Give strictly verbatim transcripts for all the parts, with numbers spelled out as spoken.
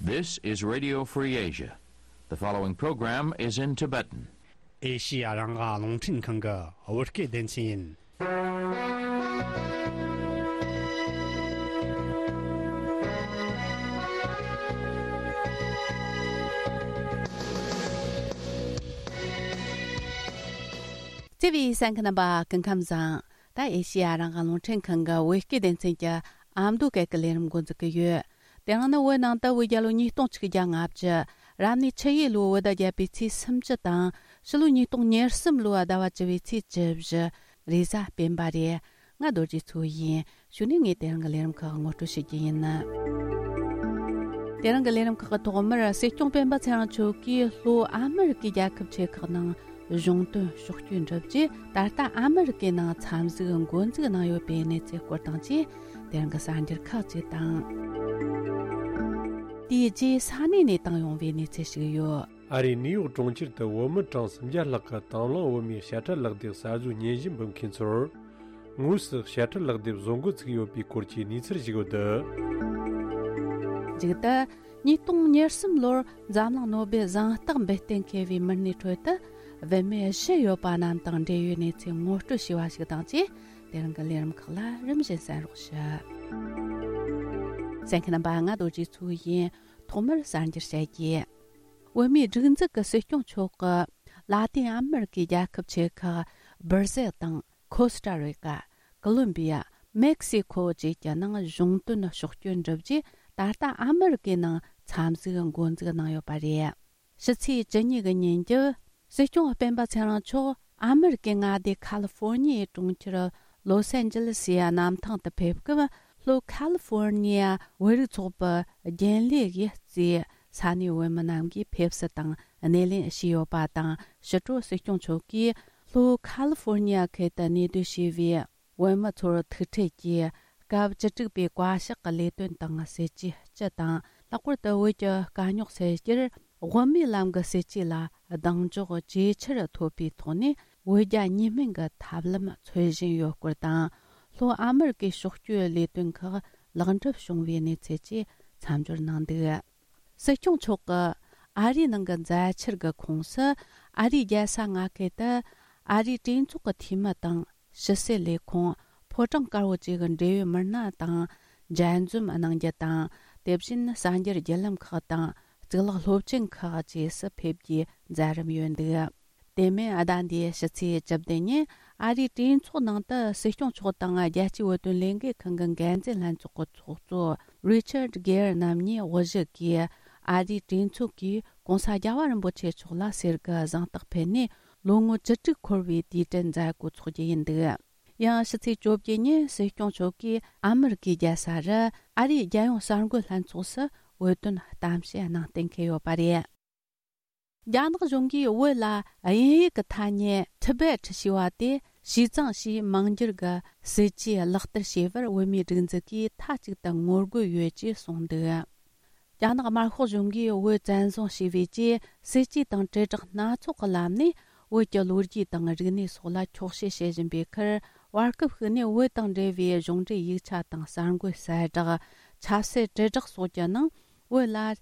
This is Radio Free Asia. The following program is in Tibetan. ཨེ་ཤི་ཡ་རང་དབང་རླུང་འཕྲིན་ཁང་གི་བོད་སྐད་སྡེ་ཚན་ཡིན། བརྩེ་བའི་གསན་མཁན་རྣམ་པ་སྐུ་ཁམས་བཟང་། ད་ཨེ་ཤི་ཡ་རང་དབང་རླུང་འཕྲིན་ཁང་གི་བོད་སྐད་སྡེ་ཚན་གྱི་ཨ་མདོ་སྐད་ཀྱི་ལས་རིམ་འགོ་འཛུགས་ཀྱི་ཡོད། དེ་རིང་ནི་བོད་ནང་དུ་བོད་རྒྱལ་ལོ་ཉིས་སྟོང་ཆིག་བརྒྱ་ལྔ་བཅུ། རབ་གནས་ཆུ་ཡོས་ལོའི་བོད་ཟླ་བརྒྱད་པའི་ཚེས་སུམ་ཅུ་དང་། ཕྱི་ལོ་ཉིས་སྟོང་ཉེར་གསུམ་ལོའི་ཟླ་བ་བཅུ་བའི་ཚེས་བཅུ་བཞི། རེས་གཟའ་སྤེན་པ་རེད། ང་རྡོ་རྗེ་མཚོ་ཡིན། གཞུག་ནས་ངས་དེ་རིང་གི་ལས་རིམ་ཁག་ངོ་སྤྲོད་བྱེད་རྒྱུ་ཡིན། དེ་རིང་གི་ལས་རིམ་ཁག་གི་ཐོག་མར་སྲིད་སྐྱོང་སྤེན་པ་ཚེ་རིང་མཆོག་གིས་ལྷོ་ཨ་མི་རི་ཀའི་རྒྱལ་ཁབ་ཆེ་ཁག་ནང་གཞུང་དོན་ཕྱོགས་བསྐྱོད་འགྲུབ་རྗེས། ད་ལྟ་ཨ་མི་རི་ཀའི་ནང་འཚམས་གཟིགས་འགོ་འཛུགས་གནང་ཡོད་པའི་གནས་ཚུལ་སྐོར་དང་བཅས། དེ་རིང་གི་གསར་འགྱུར་ཁག་ཅིག་དང་། དེའི་རྗེས་ས་གནས་ནས་བཏང་ཡོང་བའི་གནས་ཚུལ་ཞིག་ཡོད། ཨ་རིའི་ནིའུ་ཡོག་གྲོང་ཁྱེར་དུ་བོད་མི་གྲངས་སུམ་བརྒྱ་ལྷག་གིས་དང་བླངས་བོད་མིའི་དཔྱ་ཁྲལ་ལག་དེབ་གསར་བཟོའི་སྙན་ཞུ་འབུལ་མཁན་ཚོར། དངོས་སུ་དཔྱ་ཁྲལ་ལག་དེབ་བཟོ་འགོ་ཚུགས་ཡོད་པའི་སྐོར་གྱི་གནས་ཚུལ་ཞིག་ཡོད་འདུག། མཇུག་ཏུ། ཉིས་སྟོང་ཉེར་གསུམ་ལོར་འཛམ་གླིང་ནོ་སྦེལ་གཟེངས་རྟགས་འབུལ་གཏན་འཁེལ་བའི་མི་སྣའི་ཁྲོད་དུ། བུད་མེད་བཞི་ཡོད་པ་རྣམས་དང་འབྲེལ་ཡོད་གནས་ཚུལ་ངོ་སྤྲོད་བྱས་པ་ཞིག་དང་བཅས། དེ་རིང་གི་ལས་རིམ་ཁག་ལ་རིམ་བཞིན་གསན་རོགས་ཞུ། གསན་མཁན་རྣམ་པ། ང་རྡོ་རྗེ་མཚོ་ཡིན། ཐོག་མར་གསར་འགྱུར་བཤད་རྒྱུ། བོད་མིའི་སྒྲིག་འཛུགས་ཀྱི་སྲིད་སྐྱོང་མཆོག་གིས་ལ་ཏིན་ཨ་མི་རི་ཀའི་རྒྱལ་ཁབ་ཆེ་ཁག་སྦིར་ཟེལ་དང་། ཁོ་སི་ཊ་རི་ཀ། ཀོ་ལོམ་བི་ཡ། མེག་སི་ཁོ་བཅས་ཀྱི་ནང་གཞུང་དོན་ཕྱོགས་བསྐྱོད་འགྲུབ་རྗེས། ད་ལྟ་ཨ་མི་རི་ཀའི་ནང་འཚམས་གཟིགས་འགོ་འཛུགས་གནང་ཡོད་པ་རེད། ཕྱི་ཚེས་བཅུ་གཉིས་ཀྱི་ཉིན་རྒྱབ། སྲིད་སྐྱོང་སྤེན་པ་ཚེ་རིང་མཆོག་ཨ་མི་རི་ཀའི་མངའ་སྡེ་ཁ་ལི་ཧྥོར་ནི་ཡའི་གྲོང་ཁྱེར་ལོ་སན་ཇི་ལི་སི་ཡི་གནམ་ཐང་དུ་ཕེབས་སྐབས། ལྷོ་ཁ་ལི་ཧྥོར་ནི་ཡ་བོད་རིགས་ཚོགས་པའི་རྒྱུན་ལས་ཀྱིས་གཙོས་ས་གནས་བོད་མི་རྣམས་ཀྱིས་ཕེབས་བསུ་དང་སྣེ་ལེན་ཞུས་ཡོད་པ་དང་། ཕྱི་དྲོ་སྲིད་སྐྱོང་མཆོག་གིས་ལྷོ་ཁ་ལི་ཧྥོར་ནི་ཡ་ཁུལ་དུ་གནས་སྡོད་བྱས་པའི་བོད་མི་ཚོར་ཐུག་འཕྲད་ཀྱིས། སྐབས་བཅུ་དྲུག་པའི་བཀའ་ཤག་གི་ལས་དོན་དང་སྲིད་ཇུས་སྤྱི་དང་། ལྷག་པར་དུ་བོད་ཀྱི་དཀའ་རྙོག་སེལ་རྒྱུར་དབུ་མའི་ལམ་གྱི་སྲིད་ཇུས་ལ་གདེང་འཇོག་ཇེ་ཆེར་ཐོབ་པའི་ཐོག་ནས། བོད་རྒྱ་གཉིས་སྨན་གྱི་ཐབས་ལམ་འཚོལ་བཞིན་ཡོད་སྐོར་དང་། ལྷོ་ཨ་མི་རི་ཀའི་ཕྱོགས་བསྐྱོད་ལས་དོན་ཁག་ལེགས་འགྲུབ་བྱུང་བའི་གནས་ཚུལ་བཅས་མཚམས་སྦྱོར་གནང་འདུག། སྲིད་སྐྱོང་མཆོག་གིས་ཨ་རིའི་ནང་གི་མཛའ་ཆར་གྱི་ཁོངས་སུ། ཨ་རིའི་རྒྱལ་ས་མངའ་ཁུལ་དུ་ཨ་རིའི་གྲོས་ཚོགས་ཀྱི་འཐུས་མི་དང་། ཕྱི་སྲིད་ལས་ཁུངས། ཕོ་བྲང་དཀར་པོ་བཅས་ཀྱི་འབྲེལ་ཡོད་མི་སྣ་དང་མཇལ་འཛོམས་གནང་རྒྱུ་དང་། དེ་བཞིན་གསར་འགྱུར་བརྒྱུད་ལམ་ཁག་དང་གཙུག་ལག་སློབ་ཆེན་ཁག་བཅས་སུ་ཕེབས་རྒྱུའི་མཛད་རིམ་ཡོད་འདུག། དེ་མིན། ཟླ་འདིའི་ཕྱི་ཚེས་བཅུ་བདུན་ཉིན་ཨ་རིའི་གྲོས་ཚོགས་ནང་དུ་སྲིད་སྐྱོང་མཆོག་དང་རྒྱལ་སྤྱིའི་བོད་དོན་ལས་འགུལ་ཁང་གི་འགན་འཛིན་ལྷན་ཚོགས་ཀྱི་ཚོགས་གཙོ་རི་ཆར་གེར་རྣམ་གཉིས་དབུ་བཞུགས་ཀྱིས་ཨ་རིའི་གྲོས་ཚོགས་ཀྱིས་༸གོང་ས་རྒྱལ་བ་རིན་པོ་ཆེ་མཆོག་ལ་གསེར་གྱི་གཟེངས་རྟགས་ཕུལ་ནས་ལོ་ངོ་བཅུ་དྲུག་འཁོར་བའི་དུས་དྲན་མཛད་སྒོ་འཚོགས་རྒྱུ་ཡིན་འདུག། ཡང་ཕྱི་ཚེས་བཅོ་བརྒྱད་ཉིན་སྲིད་སྐྱོང་མཆོག་གིས་ཨ་མི་རི་ཀའི་རྒྱལ་ས་རུ་ཨ་རིའི་རྒྱལ་ཡོངས་གསར་འགོད་ལྷན་ཚོགས་སུ་བོད་དོན་གཏམ་བཤད་གནང་གཏན་འཁེལ་ཡོད་པ་རེད། རྒྱ་ནག་གཞུང་གིས་བོད་ལ་དབྱིན་ཡིག་གི་ཐ་སྙད་ཊི་བེ་ཊི་ཞེས་པ་དེ་ཞིས་ཙང་ཞེས་མིང་བསྒྱུར་གྱི་སྲིད་ཇུས་ལག་བསྟར་བྱས་པར་བོད་མིའི་སྒྲིག་འཛུགས་ཀྱིས་མཐའ་གཅིག་ཏུ་ངོ་རྒོལ་ཡོད་ཅེས་གསུངས་འདུག། རྒྱ་ནག་དམར་ཤོག་གཞུང་གིས་བོད་བཙན་བཟུང་བྱས་པའི་རྗེས། སྲིད་ཇུས་དང་དྲིལ་བསྒྲགས་སྣ་ཚོགས་ཀྱི་ལམ་ནས་བོད་ཀྱི་ལོ་རྒྱུས་དང་རིག་གནས་སོགས་ལ་འཁྱོག་བཤད་བྱེད་བཞིན་པའི་ཁར། བར་སྐབས་ཤིག་ནས་བོད་དང་འབྲེལ་བའི་གཞུང་འབྲེལ་ཡིག་ཆ་དང་གསར་འགོད་གསལ་བསྒྲགས། ཆབ་སྲིད་དྲིལ་བསྒྲགས་སོགས་ཀྱི་ནང་། བོད་ལ་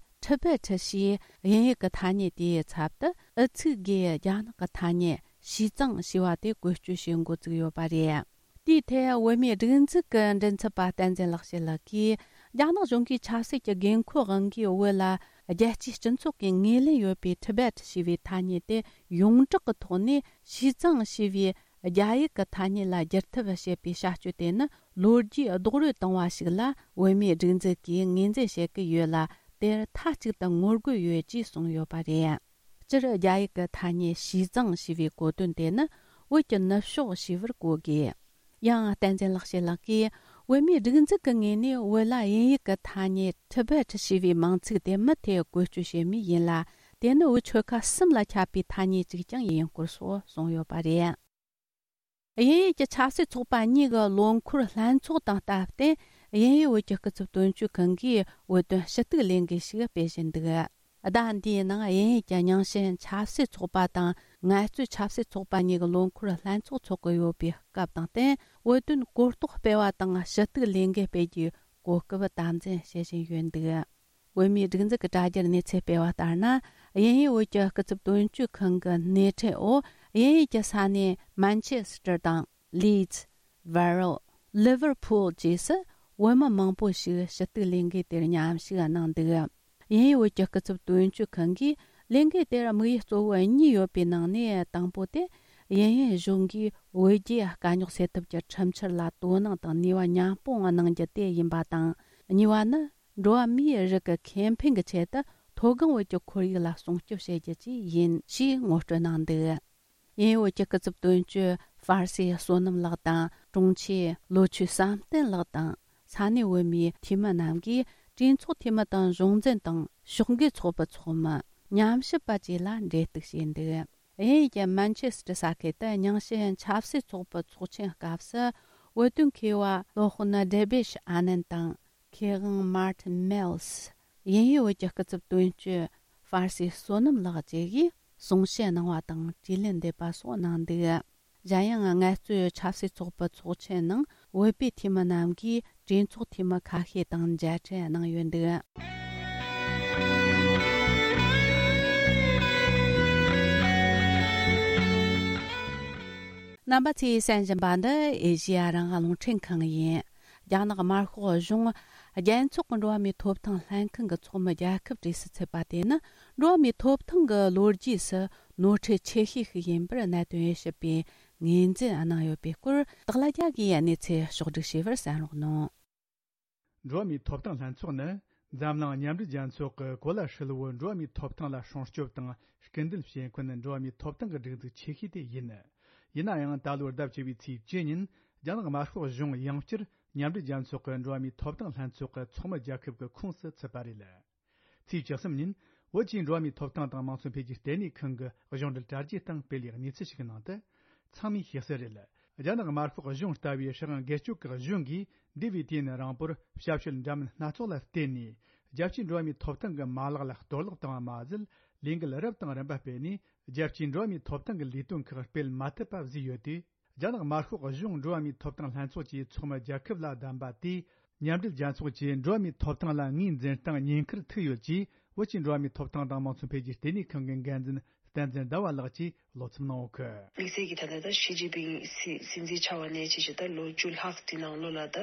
ཊི་བེ་ཊི་ཞེས་དབྱིན་ཡིག་གི་ཐ་སྙད་དེའི་ཚབ་ཏུ་ཨུ་ཚུགས་སྒོས་རྒྱ་ནག་གི་ཐ་སྙད་ཞིས་ཙང་ཞེས་པ་དེ་བཀོལ་སྤྱོད་བྱེད་འགོ་བཙུགས་ཡོད་པ་རེད། དེའི་ཐད་བོད་མིའི་སྒྲིག་འཛུགས་ཀྱི་མགྲིན་ཚབ་པ་བསྟན་འཛིན་ལེགས་བཤད་ལགས་ཀྱིས། རྒྱ་ནག་གཞུང་གིས་ཆབ་སྲིད་ཀྱི་དགོས་མཁོའི་དབང་གིས་བོད་ལ་རྒྱལ་སྤྱིའི་སྤྱི་ཚོགས་ཀྱིས་ངོས་ལེན་ཡོད་པའི་ཊི་བེ་ཊི་ཞེས་པའི་ཐ་སྙད་དེ་ཡོངས་གྲགས་ཀྱི་ཐོག་ནས་ཞིས་ཙང་ཞེས་པའི་རྒྱ་ཡིག་གི་ཐ་སྙད་ལ་བསྒྱུར་ཐབས་བྱེད་པའི་བྱ་སྤྱོད་དེ་ནི། ལོ་རྒྱུས་རྡོག་རོལ་བཏང་བ་ཞིག་ལ་བོད་མིའི་སྒྲིག་འཛུགས་ཀྱིས་ངོས་འཛིན་བྱེད་ཀྱི་ཡོད་ལ། དེར་མཐའ་གཅིག་ཏུ་ངོ་རྒོལ་ཡོད་ཅེས་གསུངས་ཡོད་པ་རེད། སྤྱིར་རྒྱ་ཡིག་གི་ཐ་སྙད་ཞིས་ཙང་ཞེས་པའི་གོ་དོན་དེ་ནི་བོད་ཀྱི་ནུབ་ཕྱོགས་ཞེས་པར་གོ་དགོས། ཡང་བསྟན་འཛིན་ལེགས་བཤད་ལགས་ཀྱིས། བོད་མིའི་སྒྲིག་འཛུགས་ཀྱི་ངོས་ནས་བོད་ལ་དབྱིན་ཡིག་གི་ཐ་སྙད་ཊི་བེ་ཊི་ཞེས་པའི་མིང་ཚིག་དེ་མུ་མཐུད་བཀོལ་སྤྱོད་བྱེད་མུས་ཡིན་ལ། དེ་ནི་བོད་ཆོལ་ཁ་གསུམ་ལ་ཁྱབ་པའི་ཐ་སྙད་ཅིག་ཀྱང་ཡིན་སྐོར་སོགས་གསུངས་ཡོད་པ་རེད། དབྱིན་ཡུལ་གྱི་ཆབ་སྲིད་ཚོགས་པ་གཉིས་ཀྱི་ལོ་འཁོར་ལྷན་ཚོགས་དང་སྟབས་བསྟུན། དབྱིན་ཡུལ་བོད་ཀྱི་སྐུ་ཚབ་དོན་གཅོད་ཁང་གིས་བོད་དོན་ཞུ་གཏུག་ལས་འགུལ་ཞིག་སྤེལ་བཞིན་འདུག། ཟླ་འདིའི་ནང་དབྱིན་ཡུལ་གྱི་རྙིང་ཞེན་ཆབ་སྲིད་ཚོགས་པ་དང་ངལ་རྩོལ་ཆབ་སྲིད་ཚོགས་པ་གཉིས་ཀྱི་ལོ་འཁོར་ལྷན་ཚོགས་འཚོགས་ཀྱི་ཡོད་པའི་སྐབས་དང་བསྟུན། བོད་དོན་གོ་རྟོགས་སྤེལ་བ་དང་ཞུ་གཏུག་ལས་འགུལ་སྤེལ་རྒྱུའི་གོ་སྐབས་དམ་འཛིན་བྱེད་བཞིན་ཡོད་འདུག། བོད་མིའི་སྒྲིག་འཛུགས་ཀྱི་དྲ་རྒྱར་གནས་ཚུལ་སྤེལ་བ་ལྟར་ན། དབྱིན་ཡུལ་བོད་ཀྱི་སྐུ་ཚབ་དོན་གཅོད་ཁང་གི་སྣེ་ཁྲིད་འོག་དབྱིན་ཡུལ་གྱི་ས་གནས་མན་ཆེ་སི་ཏར་དང་ལིཌ། ཝེ་རལ། ལི་ཝར་ཕུལ་བཅས་སུ་བོད་མི་མང་པོ་ཞིག་ཞུ་གཏུག་ལས་འགུལ་དེར་མཉམ་ཞུགས་གནང་འདུག་དབྱིན་ཡུལ་བོད་ཀྱི་སྐུ་ཚབ་དོན་གཅོད་ཁང་གིས་ལས་འགུལ་དེར་དམིགས་ཡུལ་གཙོ་བོ་གཉིས་ཡོད་པའི་ནང་ནས་དང་པོ་དེ། དབྱིན་ཡུལ་གཞུང་གིས་བོད་རྒྱའི་དཀའ་རྙོག་སེལ་ཐབས་ཀྱི་ཁྲིམས་འཆར་ལ་དོ་སྣང་དང་ནུས་པ་མཉམ་སྤུངས་གནང་རྒྱུ་དེ་ཡིན་པ་དང་། གཉིས་པ་ནི། འགྲོ་བ་མིའི་རིགས་ཀྱི་ཁེ་ཕན་གྱི་ཆེད་དུ་མཐོ་སྒང་བོད་ཀྱི་ཁོར་ཡུག་ལ་སྲུང་སྐྱོབ་བྱེད་རྒྱུ་བཅས་ཡིན་ཞེས་ངོ་སྤྲོད་གནང་འདུག་དབྱིན་ཡུལ་བོད་ཀྱི་སྐུ་ཚབ་དོན་གཅོད་ཧྥར་སི་བསོད་ནམས་ལགས་དང་། དྲུང་ཆེ་ལོ་ཆོས་བསམ་གཏན་ལགས་དང་། ས་གནས་བོད་མིའི་འཐུས་མི་རྣམས་ཀྱིས་གྲོས་ཚོགས་འཐུས་མི་དང་གཞུང་འཛིན་དང་ཕྱོགས་འགལ་ཚོགས་པའི་ཚོགས་མི། ཉམས་ཞིབ་པ་བཅས་ལ་འབྲེལ་གཏུག་བྱས་འདུག་དབྱིན་ཡུལ་གྱི་མན་ཆེ་སི་ཏྲ་ས་ཁུལ་དུ་རྙིང་ཞེན་ཆབ་སྲིད་ཚོགས་པའི་ཚོགས་ཆེན་སྐབས་སུ། བོད་དོན་མཁས་པ་སློབ་དཔོན་ཌེ་བིད་ཨ་ནན་དང་། མཁས་དབང་མར་ཏིན་མེལ་སི། དབྱིན་ཡུལ་བོད་ཀྱི་སྐུ་ཚབ་དོན་གཅོད་ཧྥར་སི་བསོད་ནམས་ལགས་བཅས་ཀྱིས་གསུང་བཤད་གནང་བ་དང་དྲིས་ལན་འདེབས་པ་སོགས་གནང་འདུག་གཞན་ཡང་། ངལ་རྩོལ་ཆབ་སྲིད་ཚོགས་པའི་ཚོགས་ཆེན་ནང་བོད་པའི་འཐུས་མི་རྣམས་ཀྱིས་གྲོས་ཚོགས་འཐུས་མི་ཁ་ཤས་དང་མཇལ་འཕྲད་གནང་ཡོད་འདུག་རྣམ་པ་ཚོས་གསན་བཞིན་པ་འདི་ཨེ་ཤེ་ཡ་རང་དབང་རླུང་འཕྲིན་ཁང་ཡིན། རྒྱ་ནག་དམར་ཤོག་གཞུང་རྒྱལ་ཚོགས་ཀྱི་འགྲོ་བ་མིའི་ཐོབ་ཐང་ལྷན་ཁང་གི་ཚོགས་མི་རྒྱལ་ཁབ་གྲས་སུ་ཚུད་པ་དེ་ནི། འགྲོ་བ་མིའི་ཐོབ་ཐང་གི་ལོ་རྒྱུས་སུ་ནོར་འཁྲུལ་ཆེ་ཤོས་ཤིག་ཡིན་པར་གནད་དོན་དབྱེ་ཞིབ་པས་ངོས་འཛིན་གནང་ཡོད་པའི་སྐོར། སྟག་ལྷ་རྒྱལ་གྱིས་གནས་ཚུལ་ཕྱོགས་བསྒྲིགས་བྱས་པར་གསན་རོགས་གནང་། འགྲོ་བ་མིའི་ཐོབ་ཐང་ལྷན་ཚོགས་ནི། འཛམ་གླིང་མཉམ་འབྲེལ་རྒྱལ་ཚོགས་ཀྱི་གོ་ལ་ཧྲིལ་བོའི་འགྲོ་བ་མིའི་ཐོབ་ཐང་ལ་སྲུང་སྐྱོབ་དང་སྐུལ་འདེད་བྱེད་མཁན་འགྲོ་བ་མིའི་ཐོབ་ཐང་གི་སྒྲིག་འཛུགས་ཆེ་ཤོས་དེ་ཡིན། ཡིན་ན་ཡང་། ད་ལོའི་ཟླ་བཅུ་པའི་ཚེས་བཅུ་ཉིན། རྒྱ་ནག་དམར་ཤོག་གཞུང་ཡང་བསྐྱར་མཉམ་འབྲེལ་རྒྱལ་ཚོགས་ཀྱི་འགྲོ་བ་མིའི་ཐོབ་ཐང་ལྷན་ཚོགས་ཀྱི་ཚོགས་མི་རྒྱལ་ཁབ་ཀྱི་ཁོངས་སུ་ཚུད་པ་རེད། ཚེས་བཅུ་གསུམ་ཉིན། བོད་ཀྱི་འགྲོ་བ་མིའི་ཐོབ་ཐང་དང་དམངས་གཙོ་འཕེལ་རྒྱས་ལྟེ་གནས་ཁང་གི་གཞུང་འབྲེལ་དྲ་རྒྱའི་སྟེང་སྤེལ་བའི་གནས་ཚུལ་ཞིག་གི་ནང་དུ། ཚང་མས་ཤེས་གསལ་རེད། རྒྱ་ནག་དམར་ཤོག་གཞུང་ལྟ་བུའི་ཧྲི་ཧང་སྒེར་གཅོད་ཀྱི་གཞུང་གིས། འདས་པའི་དུས་ནས་རིང་པོར་ཞབས་ཞུ་འདྲ་མིན་སྣ་ཚོགས་ལ་བརྟེན་ནས། རྒྱལ་སྤྱིའི་འགྲོ་བ་མིའི་ཐོབ་ཐང་གི་མ་ལག་ལ་གཏོར་བརླག་བཏང་བ་མ་ཟད། ལས་འགུལ་རབ་དང་རིམ་པ་སྤེལ་ནས། རྒྱལ་སྤྱིའི་འགྲོ་བ་མིའི་ཐོབ་ཐང་གི་ལས་དོན་ཁག་སྤེལ་མ་ཐུབ་པ་བཟོས་ཡོད་དུས། རྒྱ་ནག་དམར་ཤོག་གཞུང་འགྲོ་བ་མིའི་ཐོབ་ཐང་ལྷན་ཚོགས་ཀྱི་ཚོགས་མི་རྒྱལ་ཁབ་ལ་བདམས་པ་དེས། མཉམ་འབྲེལ་རྒྱལ་ཚོགས་ཀྱི་འགྲོ་བ་མིའི་ཐོབ་ཐང་ལ་ངོས་འཛིན་སྟངས་ཉེན་ཁར་ཐུག་ཡོད་ཅེས། བོད་ཀྱི་འགྲོ་བ་མིའི་ཐོབ་ཐང་དང་དམངས་གཙོ་འཕེལ་རྒྱས་ལྟེ་གནས་ཁང་གི་འགན་འཛིན་བསྟན་འཛིན་ཟླ་བ་ལགས་ཀྱིས་བློ་འཚབ་གནང་ཡོད་གི། དམིགས་བསལ་གྱིས་ད་ལྟ་ད་ཞི་ཅིན་ཕིང་སྲིད་སྲིད་འཛིན་ཆགས་པ་ནས་བྱས་བྱས་ད་ལོ་བཅུ་ལྷག་དེ་ནང་ལོགས་ལ་ད་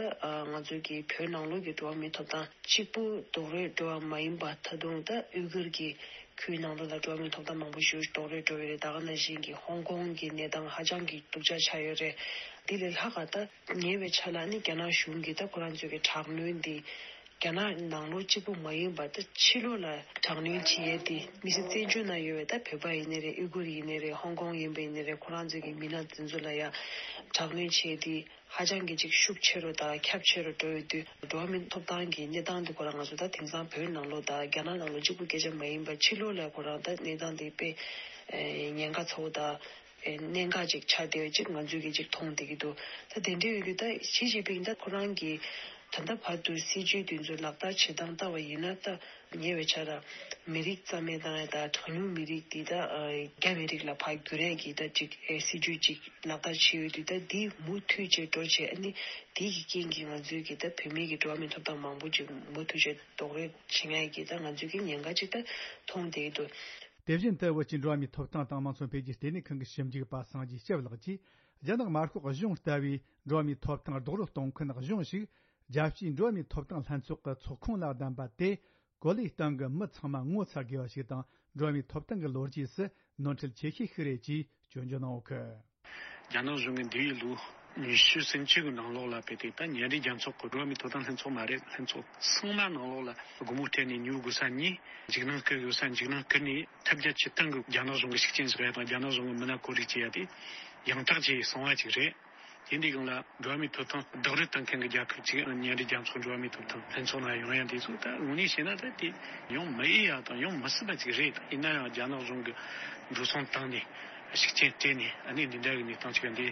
ང་ཚོ་གི་བོད་ནང་ལོགས་ཀྱི་འགྲོ་བ་མིའི་ཐོབ་ཐང་གཅིག་པུ་རྡོག་རོལ་འགྲོ་བ་མ་ཡིན་པ། ད་དུང་ད་ཨུ་གུར་གྱི་ཁུལ་ནང་ལོགས་ལ་འགྲོ་བ་མིའི་ཐོབ་ཐང་མང་པོ་ཞིག་རྡོག་རོལ་འགྲོ་བའི་རེད། ད་ག་ནང་བཞིན་གྱི་ཧོང་ཀོང་གི་གནས་སྟངས་ཧ་ཅང་གི་སྡུག་ཅག་ཆགས་ཡོད་རེད། དེ་ལས་ལྷག་ག་ད་ཉེ་བའི་ཆར་ལ་ནི་རྒྱ་ནག་གཞུང་གིས་ད་ཁོ་རང་ཚོའི་གི་དྲག་གནོན་འདི་རྒྱ་ནག་ནང་ལོགས་གཅིག་པུ་མ་ཡིན་པར་ད་ཕྱི་ལོགས་ལ་དྲག་གནོན་བྱེད་ཡས་དེ། མི་སེར་བཙན་བྱོལ་ནང་ཡོད་པའི་ད་བོད་པ་ཡིན་ནའི་རེད། ཨུ་གུར་ཡིན་ནའི་རེད། ཧོང་ཀོང་ཡིན་པ་ཡིན་ནའི་རེད། ཁོ་རང་ཚོའི་གི་མི་སྣ་དེ་ཚོ་ལ་ཡང་དྲག་གནོན་བྱེད་ཡས་དེ་ཧ་ཅང་གི་ཅིག་ཤུགས་ཆེ་རུ་དང་ཁྱབ་ཆེ་རུ་འགྲོ་ཡོད་དུས། འགྲོ་བ་མིའི་ཐོབ་ཐང་གི་གནས་སྟངས་དེ་ཁོ་རང་ང་ཚོ་ད་དེང་སང་བོད་ནང་ལོགས་དང་རྒྱ་ནག་ནང་ལོགས་གཅིག་པུ་སྐད་ཆ་མ་ཡིན་པར་ཕྱི་ལོགས་ལ་ཁོ་རང་ད་གནས་སྟངས་དེ་དཔེ་ཉེན་ཁ་ཚ་བོ་དང་གནད་འགག་ཅིག་ཆགས་བསྡད་པ་ཅིག་ང་ཚོས་གི་ཅིག་མཐོང་བསྡད་ཀྱི་འདུག་ད་དེ་འདྲ་ཡོད་དུས་ད་ཞི་ཅིན་ཕིང་ད་ཁོ་རང་གི་ད་ལྟ་བར་དུ་སྲིད་ཇུས་དེ་ཚོ་ལག་བསྟར་བྱེད་སྟངས་ལྟ་བ་ཡིན་ན། ད་ཉེ་བའི་ཆར་མི་རིགས་རྩ་མེད་བཏང་ཡ་དང་གྲངས་ཉུང་མི་རིགས་དེ་ད་རྒྱ་མི་རིགས་ལ་ཕར་བསྒྱུར་ཡ་གི་ད་ཅིག་སྲིད་ཇུས་ཅིག་ལག་བསྟར་བྱས་ཡོད་དུས། ད་འདི་མུ་མཐུད་བྱས་འགྲོ་བྱས། ཨ་ནི་དེ་གི་རྐྱེན་གྱིས་ང་ཚོའི་གི་ད་བོད་མིའི་གི་འགྲོ་བ་མིའི་ཐོབ་ཐང་མང་པོ་ཅིག་མུ་མཐུད་བྱས་རྡོག་རོལ་བྱེད་ཡ་གི་ད་ང་ཚོའི་གི་ཉེན་ཁ་ཅིག་ད་མཐོང་བསྡད་ཀྱི་འདུག་དེ་བཞིན་དུ་བོད་ཀྱི་འགྲོ་བ་མིའི་ཐོབ་ཐང་དང་དམངས་གཙོ་འཕེལ་རྒྱས་ལྟེ་གནས་ཁང་གི་ཞིབ་འཇུག་པ་སངས་རྒྱས་སྐྱབས་ལགས་ཀྱིས། རྒྱ་ནག་དམར་ཤོག་གཞུང་ལྟ་བུའི་འགྲོ་བ་མིའི་ཐོབ་ཐང་རྡོག་རོལ་གཏོང་མཁན་གཞུང་ཞིག་རྒྱལ་སྤྱིའི་འགྲོ་བ་མིའི་ཐོབ་ཐང་ལྷན་ཚོགས་ཀྱི་ཚོགས་ཁོངས་ལ་བདམས་པ་དེ། གོ་ལའི་སྟེང་གི་མི་ཚང་མ་ངོ་ཚ་དགོས་པ་ཞིག་དང་། འགྲོ་བ་མིའི་ཐོབ་ཐང་གི་ལོ་རྒྱུས་སུ་ནོར་འཁྲུལ་ཆེ་ཤོས་ཤིག་རེད་ཅེས་སྐྱོན་བརྗོད་གནང་ཡོད་གི། རྒྱ་ནག་གཞུང་གིས་འདས་པའི་ལོ་ཉི་ཤུ་ཟིན་བཅུ་གི་ནང་ལོགས་ལ་དཔེ་དེ་ད་མཉམ་འབྲེལ་རྒྱལ་ཚོགས་ཀྱི་འགྲོ་བ་མིའི་ཐོབ་ཐང་ལྷན་ཚོགས་མ་རེད། ལྷན་ཚོགས་ཚང་མ་ནང་ལོགས་ལ་སྒོ་མོ་སྤྲད་ནས་ཉོ་དགོས་ས་ཉོས། འཇིགས་སྣང་སྐུལ་དགོས་ས་འཇིགས་སྣང་སྐུལ་ནས། ཐབས་བརྒྱ་ཇུས་སྟོང་གིས་རྒྱ་ནག་གཞུང་གི་ཤུགས་རྐྱེན་བཞག་ཡ་དང་རྒྱ་ནག་གཞུང་གི་མི་སྣ་བཀོད་སྒྲིག་བྱེད་ཡ་དེ་ཡང་དག་བྱས་སོང་བ་ཅིག་རེད། དེ་འདི་སྒང་ལ་འགྲོ་བ་མིའི་ཐོབ་ཐང་རྡོག་རོལ་གཏོང་མཁན་གྱི་རྒྱལ་ཁབ་ཅིག་མཉམ་འབྲེལ་རྒྱལ་ཚོགས་འགྲོ་བ་མིའི་ཐོབ་ཐང་ལྷན་ཚོགས་ནང་ཡོང་ཡ་འདི་ཚོ་ད་དངོས་གནས་བཤད་ན་ད་དེ་ཡོང་མི་འོས་ཡ་དང་ཡོང་མི་སྲིད་པ་ཅིག་རེད། ཡིན་ན་ཡང་རྒྱ་ནག་གཞུང་གིས་འགྲོ་སོང་བཏང་ནས་ཤུགས་རྐྱེན་སྤྲད་ནས། ཨ་ནི་འདི་འདྲ་གི་གནས་སྟངས་ཅིག་འདི་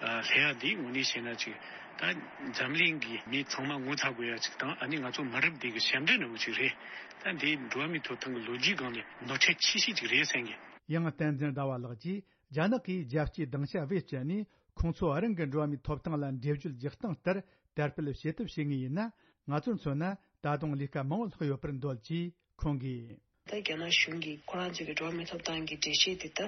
སླེབས་ཡ་འདི་དངོས་གནས་བཤད་ན་ཅིག་ད་འཛམ་གླིང་གི་མི་ཚང་མ་ངོ་ཚ་དགོས་ཡ་ཅིག་དང་། ཨ་ནི་ང་ཚོ་མི་རབས་འདི་གི་ཞབས་འདྲེན་འདྲ་བོ་ཅིག་རེད། ད་འདི་འགྲོ་བ་མིའི་ཐོབ་ཐང་གི་ལོ་རྒྱུས་སྒང་ནས་ནོར་འཁྲུལ་ཆེ་ཤོས་ཅིག་རེད་བསམ་གི། ཡང་བསྟན་འཛིན་ཟླ་བ་ལགས་ཀྱིས། རྒྱ་ནག་གིས་རྒྱལ་སྤྱིའི་སྡིངས་ཆ་བེད་སྤྱད་ནས་ཁོང་ཚོ་རང་གི་འགྲོ་བ་མིའི་ཐོབ་ཐང་ལ་འགྲེལ་བརྗོད་རྒྱག་སྟངས་ལྟར་དར་སྤེལ་བྱེད་ཐབས་བྱེད་ངེས་ཡིན་ན། ང་ཚོར་མཚོན་ན་ད་དུང་ལས་ཀ་མང་བོ་ལྷག་ཡོད་པར་འདོད་ཅེས་ཁོང་གིས། ད་རྒྱ་ནག་གཞུང་གིས་ཁོ་རང་ཚོའི་གི་འགྲོ་བ་མིའི་ཐོབ་ཐང་གི་འགྲེལ་བཤད་དེ་ད་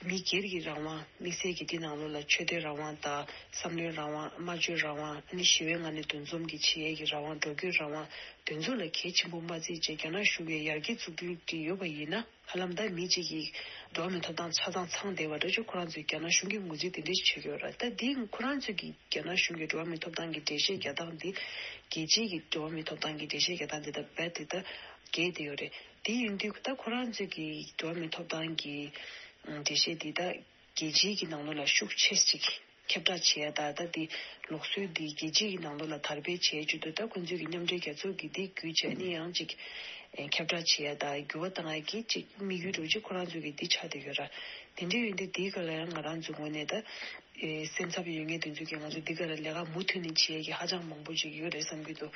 མི་སྒེར་གྱི་རང་དབང་དམིགས་བསལ་གྱི་དེ་ནང་ལོགས་ལ་ཆོས་དད་རང་དབང་དང་བསམ་བློའི་རང་དབང་། སྨྲ་བརྗོད་རང་དབང་། ཨ་ནི་ཞི་བའི་ངང་ནས་འདུ་འཛོམས་ཀྱི་བྱེད་ཡས་ཀྱི་རང་དབང་། འགྲོ་སྐྱོད་རང་དབང་། དེ་ཚོ་ལ་གལ་ཆེན་པོ་མ་བརྩིས་བྱས་རྒྱ་ནག་གཞུང་གིས་ཡར་རྒྱས་བཙུགས་འདུན་དེ་ཡོད་པ་ཡིན་ན། ཧ་ལམ་ད་མི་གཅིག་གིས་འགྲོ་བ་མིའི་ཐོབ་ཐང་ཆ་ཚང་ཚང་བསྡད་པ་འདྲ་ཅིག་ཁོ་རང་ཚོས་རྒྱ་ནག་གཞུང་གིས་ངོས་འཛིན་དེ་འདྲ་ཞིག་བྱེད་ཀྱི་ཡོད་རེད། ད་འདི་ཁོ་རང་ཚོས་ཀྱིས་རྒྱ་ནག་གཞུང་གི་འགྲོ་བ་མིའི་ཐོབ་ཐང་གི་འགྲེལ་བཤད་རྒྱག་སྟངས་འདི་རྒྱལ་སྤྱིའི་གི་འགྲོ་བ་མིའི་ཐོབ་ཐང་གི་འགྲེལ་བཤད་རྒྱག་སྟངས་འདི་ད་རྦད་དེ་ད་འགལ་བསྡད་ཡོད་རེད། དེ་ཡིན་དུས་ད་ཁོ་རང་ཚོས་ཀྱིས་འགྲོ་བ་མིའི་ཐོབ་ཐང་གི་འགྲེལ་བཤད་འདི་ད་རྒྱལ་སྤྱིའི་གི་ནང་ལོགས་ལ་ཤུགས་ཆེ་ཅིག་ཁྱབ་བསྒྲགས་བྱེད་ཡ་ད་ད་འདི་ལུགས་སྲོལ་འདི་རྒྱལ་སྤྱིའི་གི་ནང་ལོགས་ལ་དར་སྤེལ་བྱེད་རྒྱུ་དེ་ད་ཁོང་ཚོས་ཀྱི་མཉམ་འབྲེལ་རྒྱལ་ཚོགས་ཀྱི་འདི་བརྒྱུད་བྱས་ནས་ཡང་ཅིག་ཁྱབ་བསྒྲགས་བྱེད་ཡ་ད་འགྱུར་བ་བཏང་ཡ་གི་ཅིག་དམིགས་ཡུལ་འདྲ་ཅིག་ཁོ་རང་ཚོས་ཀྱི་འདི་ཆགས་བསྡད་ཡོད་ར། དེ་འདྲ་ཡོད་དུས་འདི་ག་ལ་ཡང་ང་རང་ཚོའི་ངོས་ནས་ད་ཨེ་སེམས་འཚབ་ཡོད་མཁན་དེ་ཚོས་ཀྱིས་ང་ཚོ་འདི་ག་ལ་ལས་ཀ་མུ་མཐུད་ནས་བྱེད་ཡས་ཀྱི་ཧ་ཅང་མང་པོ་ཅིག་ཡོད་རེད་བསམ་གྱི་འདུག།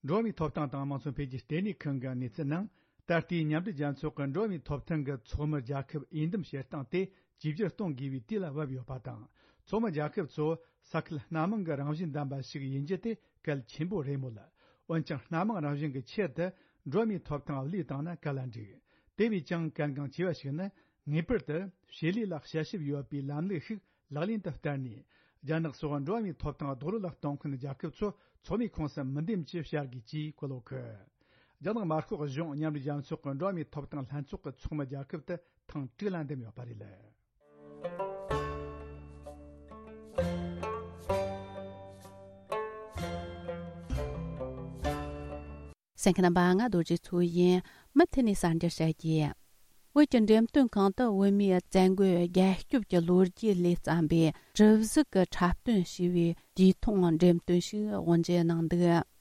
འགྲོ་བ་མིའི་ཐོབ་ཐང་དང་དམངས་སྲོལ་འཕེལ་རྒྱས་ལྟེ་གནས་ཁང་གི་གནས་ཚུལ་ནང་། ད་ལྟའི་མཉམ་འབྲེལ་རྒྱལ་ཚོགས་ཀྱི་འགྲོ་བ་མིའི་ཐོབ་ཐང་གི་ཚོགས་མི་རྒྱལ་ཁབ་འོས་འདེམས་བྱེད་སྟངས་དེ་བཅོས་བསྒྱུར་གཏོང་དགོས་པའི་དུས་ལ་བབ་ཡོད་པ་དང་། ཚོགས་མི་རྒྱལ་ཁབ་ཚོ་ས་ཁུལ་སྣ་མང་གི་རང་བཞིན་ལྡན་པ་ཞིག་ཡིན་རྒྱུ་དེ་གལ་ཆེན་པོ་རེད་མོད། འོན་ཀྱང་སྣ་མང་རང་བཞིན་གྱི་ཆེད་དུ་འགྲོ་བ་མིའི་ཐོབ་ཐང་བློས་བཏང་ན་ག་ལ་འགྲིག། དེ་བས་ཀྱང་གལ་འགངས་ཆེ་བ་ཞིག་ནི། ངེས་པར་དུ་བྱེད་ལས་ལ་དཔྱད་ཞིབ་ཡོད་པའི་ལམ་ལུགས་ཤིག་ལག་ལེན་དུ་བསྟར་ནས། རྒྱ་ནག་སོགས་འགྲོ་བ་མིའི་ཐོབ་ཐང་རྡོག་རོལ་ལ་གཏོང་མཁན་རྒྱལ་ཁབ་ཚོ་ཚོགས་མིའི་ཁོངས་སུ་མི་འདེམས་ཀྱིས་བྱ་དགོས་ཅེས་བཀོད་ཡོད། རྒྱ་ནག་དམར་ཤོག་གཞུང་མཉམ་འབྲེལ་རྒྱལ་ཚོགས་ཀྱི་འགྲོ་བ་མིའི་ཐོབ་ཐང་ལྷན་ཚོགས་ཀྱི་ཚོགས་མི་རྒྱལ་ཁབ་དེ་ཐེངས་དྲུག་ལ་འདེམས་ཡོད་པ་རེད། གསན་མཁན་རྣམ་པ། ང་རྡོ་རྗེ་མཚོ་ཡིན། མུ་མཐུད་ནས་གསར་འགྱུར་བཤད་རྒྱུ། བོད་ཀྱི་འགྲེམས་སྟོན་ཁང་དུ་བོད་མིའི་བཙན་རྒོལ་རྒྱལ་སྐྱོབ་ཀྱི་ལོ་རྒྱུས་ལས་བརྩམས་པའི་གྲུ་གཟིག་གི་འཁྲབ་སྟོན་ཞེས་པའི་དུས་ཐུང་འགྲེམས་སྟོན་ཞིག་དབུ་འབྱེད་གནང་འདུག།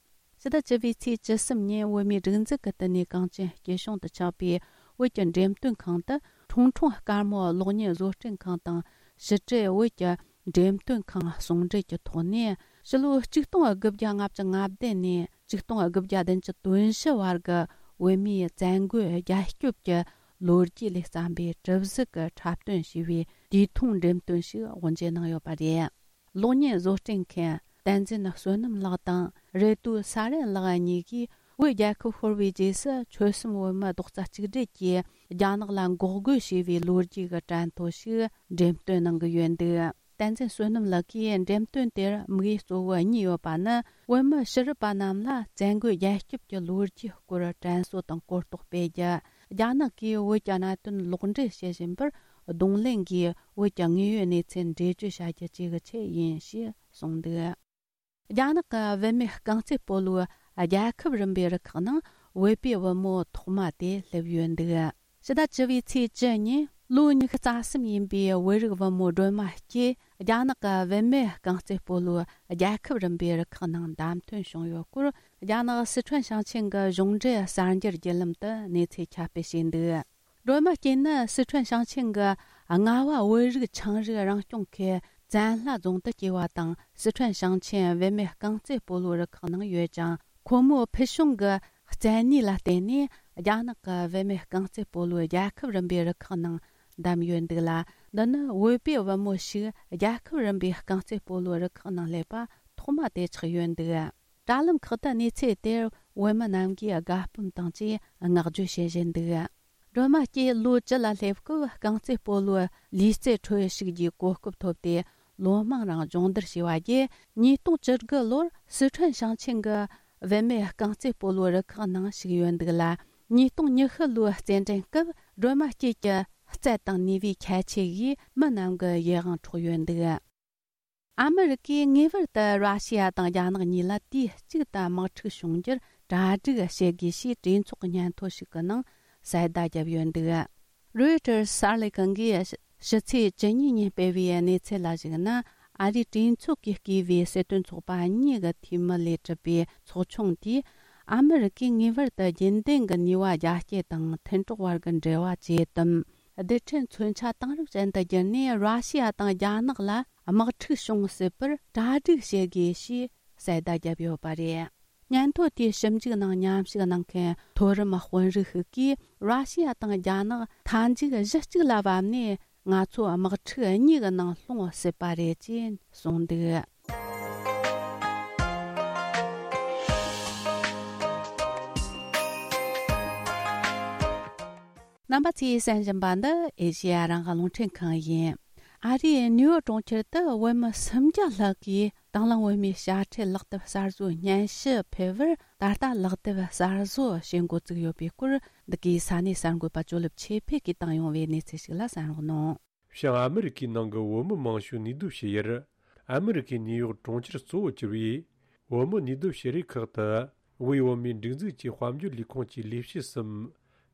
ཕྱི་ཟླ་བཅུ་པའི་ཚེས་བཅུ་གསུམ་ཉིན་བོད་མིའི་སྒྲིག་འཛུགས་ཀྱི་བསྟི་གནས་གངས་ཅན་སྐྱིད་གཤོངས་དུ་ཆགས་པའི་བོད་ཀྱི་འགྲེམས་སྟོན་ཁང་དུ། ཁྲུང་ཁྲུང་དཀར་མོ་གློག་བརྙན་བཟོ་སྐྲུན་ཁང་དང་ཕྱི་དྲིལ་བོད་ཀྱི་འགྲེམས་སྟོན་ཁང་ཟུང་འབྲེལ་གྱི་ཐོག་ནས། ཕྱི་ལོ་ཆིག་སྟོང་དགུ་བརྒྱ་ལྔ་བཅུ་ང་བདུན་ནས་ཆིག་སྟོང་དགུ་བརྒྱ་བདུན་ཅུ་དོན་བཞི་བར་གྱི་བོད་མིའི་བཙན་རྒོལ་རྒྱལ་སྐྱོབ་ཀྱི་ལོ་རྒྱུས་ལས་བརྩམས་པའི་གྲུ་གཟིག་གི་འཁྲབ་སྟོན་ཞེས་པའི་དུས་ཐུང་འགྲེམས་སྟོན་ཞིག་དབུ་འབྱེད་གནང་ཡོད་པ་རེད། གློག་བརྙན་བཟོ་སྐྲུན་མཁན་བསྟན་འཛིན་བསོད་ནམས་ལགས་དང་། རེ་ཏུ་ས་རན་ལགས་གཉིས་ཀྱིས། བོད་རྒྱལ་ཁབ་ཤོར་བའི་རྗེས་སུ་ཆོལ་གསུམ་བོད་མི་རྡོག་རྩ་གཅིག་སྒྲིལ་གྱིས་རྒྱ་ནག་ལ་འགོག་རྒོལ་བྱས་པའི་ལོ་རྒྱུས་ཀྱི་དྲན་ཐོ་ཞིག་འགྲེམས་སྟོན་གནང་གི་ཡོད་འདུག། བསྟན་འཛིན་བསོད་ནམས་ལགས་ཀྱིས་འགྲེམས་སྟོན་དེར་དམིགས་ཡུལ་གཙོ་བོ་གཉིས་ཡོད་པ་ནི། བོད་མི་ཕྱི་རབས་པ་རྣམས་ལ་བཙན་རྒོལ་རྒྱལ་སྐྱོབ་ཀྱི་ལོ་རྒྱུས་སྐོར་དྲན་གསོ་དང་གོ་རྟོགས་སྤེལ་རྒྱུ། རྒྱ་ནག་གིས་བོད་ཀྱི་གནད་དོན་ལོག་འགྲེལ་བྱེད་བཞིན་པར་གདོང་ལེན་གྱིས་བོད་ཀྱི་དངོས་ཡོད་གནས་ཚུལ་འགྲེལ་བརྗོད་བྱ་རྒྱུ་བཅས་ཀྱི་ཆེད་ཡིན་ཞེས་གསུངས་འདུག། རྒྱ་ནག་གི་བུད་མེད་རྐང་རྩེད་སྤོ་ལོའི་རྒྱལ་ཁབ་རིམ་པའི་རུ་ཁག་ནང་བོད་པའི་བུ་མོ་ཐོག་མ་དེ་སླེབས་ཡོད་འདུག། ཕྱི་ཟླ་བཅུ་པའི་ཚེས་བཅུ་ཉིན་ལོ་ཉི་ཤུ་རྩ་གསུམ་ཡིན་པའི་བོད་རིགས་བུ་མོ་སྒྲོལ་མ་སྐྱིད་རྒྱ་ནག་གི་བུད་མེད་རྐང་རྩེད་སྤོ་ལོའི་རྒྱལ་ཁབ་རིམ་པའི་རུ་ཁག་ནང་བདམས་ཐོན་བྱུང་ཡོད་སྐོར། རྒྱ་ནག་སི་ཁྲོན་ཞིང་ཆེན་གྱི་གཞུང་འབྲེལ་གསར་འགྱུར་བརྒྱུད་ལམ་དུ་གནས་ཚུལ་ཁྱབ་སྤེལ་བྱས་འདུག། སྒྲོལ་མ་སྐྱིད་ནི་སི་ཁྲོན་ཞིང་ཆེན་གྱི་རྔ་བ་བོད་རིགས་ཆའང་རིགས་རང་སྐྱོང་ཁུལ་བཙན་ལྷ་རྫོང་དུ་སྐྱེས་པ་དང་། སི་ཁྲོན་ཞིང་ཆེན་བུད་མེད་རྐང་རྩེད་སྤོ་ལོའི་རུ་ཁག་ནང་ཡོད་ཅིང་། ཁོ་མོའི་ཕུལ་བྱུང་གི་བཙན་གནས་ལ་བརྟེན་ནས་རྒྱ་ནག་གི་བུད་མེད་རྐང་རྩེད་སྤོ་ལོའི་རྒྱལ་ཁབ་རིམ་པའི་རུ་ཁག་ནང་བདམས་ཡོད་འདུག་ལ། འདི་ནི་བོད་པའི་བུ་མོ་ཞིག་རྒྱལ་ཁབ་རིམ་པའི་རྐང་རྩེད་སྤོ་ལོའི་རུ་ཁག་ནང་སླེབས་པ་ཐོག་མ་དེ་ཆགས་ཡོད་འདུག། དྲ་ལམ་ཁག་ཏུ་གནས་ཚུལ་དེར་བོད་མི་རྣམས་ཀྱིས་དགའ་སྤོབས་དང་བཅས་བསྔགས་བརྗོད་བྱེད་བཞིན་འདུག། སྒྲོལ་མ་སྐྱིད་ལོ་བཅུ་ལ་སླེབས་སྐབས་རྐང་རྩེད་སྤོ་ལོའི་ལུས་རྩལ་ཁྲོད་ཞུགས་རྒྱུའི་གོ་སྐབས་ཐོབ་སྟེ། ལོ་མང་རིང་སྦྱོང་བརྡར་བྱས་པ་བརྒྱུད། ཉིས་སྟོང་བཅུ་དགུ་ལོར་སི་ཁྲོན་ཞིང་ཆེན་གྱི་བུད་མེད་རྐང་རྩེད་སྤོ་ལོའི་རུ་ཁག་ནང་ཞུགས་ཡོད་འདུག་ལ། ཉིས་སྟོང་ཉི་ཤུ་ལོའི་རྩེད་འགྲན་སྐབས་སྒྲོལ་མ་སྐྱིད་ཀྱི་རྩལ་དང་ནུས་པའི་ཁྱད་ཆོས་ཀྱིས་མི་རྣམས་ཀྱི་ཡིད་དབང་འཕྲོག་ཡོད་འདུག། ཨ་མི་རི་ཀས་ངེས་པར་དུ་ར་ཤི་ཡ་དང་རྒྱ་ནག་གཉིས་ལ་དུས་གཅིག་ཏུ་དམག་འཁྲུག་བྱུང་རྒྱུར་གྲ་སྒྲིག་བྱེད་དགོས་ཞེས་གྲོས་ཚོགས་ཀྱི་སྙན་ཐོ་ཞིག་གི་ནང་གསལ་བརྡ་བརྒྱབ་ཡོད་འདུག། རོའི་ཊར་གསར་ལས་ཁང་གིས་ཕྱི་ཚེས་བཅུ་གཉིས་ཉིན་སྤེལ་བའི་གནས་ཚུལ་ལ་གཞིགས་ན། ཨ་རིའི་གྲོས་ཚོགས་ཀྱིས་བསྐོས་པའི་སྲིད་དོན་ཚོགས་པ་གཉིས་ཀྱི་འཐུས་མི་ལས་གྲུབ་པའི་ཚོགས་ཆུང་དེས། ཨ་མི་རི་ཀས་ངེས་པར་དུ་རྒྱུན་ལྡན་གྱི་ནུས་པ་རྒྱ་སྐྱེད་དང་མཐུན་གྲོགས་བར་གྱི་འབྲེལ་བ་ཇེ་དམ། རྡུལ་ཕྲན་མཚོན་ཆ་དེང་རབས་ཅན་དུ་བསྒྱུར་ནས་ར་ཤི་ཡ་དང་རྒྱ་ནག་ལ་དམག་འཁྲུག་བྱུང་སྲིད་པར་གྲ་སྒྲིག་བྱེད་དགོས་ཞེས་གསལ་བརྡ་བརྒྱབ་ཡོད་པ་རེད། སྙན་ཐོ་དེའི་ཞིབ་འཇུག་ནང་མཉམ་ཞུགས་གནང་མཁན་མཐོ་རིམ་དཔོན་རིགས་ཤིག་གིས། ར་ཤི་ཡ་དང་རྒྱ་ནག་མཐའ་མཇུག་གཞི་གཅིག་ལ་བབས་ནས། ང་ཚོ་དམག་འཁྲུག་གཉིས་ཀྱི་ནང་ལྷུང་སྲིད་པ་རེད་ཅེས་གསུངས་འདུག། རྣམ་པ་ཚོས་གསན་བཞིན་པ་འདི་ཨེ་ཤེ་ཡ་རང་དབང་རླུང་འཕྲིན་ཁང་ཡིན། ཨ་རིའི་ནིའུ་ཡོག་གྲོང་ཁྱེར་དུ་བོད་མི་སུམ་བརྒྱ་ལྷག་གིས་དང་བླངས་བོད་མིའི་དཔྱ་ཁྲལ་ལག་དེབ་གསར་བཟོའི་སྙན་ཞུ་ཕུལ་བར། ད་ལྟ་ལག་དེབ་གསར་བཟོ་བྱེད་འགོ་བཙུགས་ཡོད་པའི་སྐོར། འདི་གའི་ས་གནས་གསར་འགོད་པ་ཇོ་ལེབ་ཆོས་འཕེལ་གྱིས་བཏང་ཡོང་བའི་གནས་ཚུལ་ཞིག་ལ་གསན་རོགས་གནང་། བྱང་ཨ་མི་རི་ཀའི་ནང་གི་བོད་མི་མང་ཤོས་ནུས་སྡོད་བྱེད་ཡུལ། ཨ་མི་རི་ཀའི་ནིའུ་ཡོག་གྲོང་ཁྱེར་གཙོ་བོར་གྱུར་བའི་བོད་མི་ནུས་སྡོད་བྱེད་རིགས་ཁག་ཏུ། དབུས་བོད་མིའི་སྒྲིག་འཛུགས་ཀྱི་དཔལ་འབྱོར་ལས་ཁུངས་ཀྱི་ལས་བྱེད་གསུམ།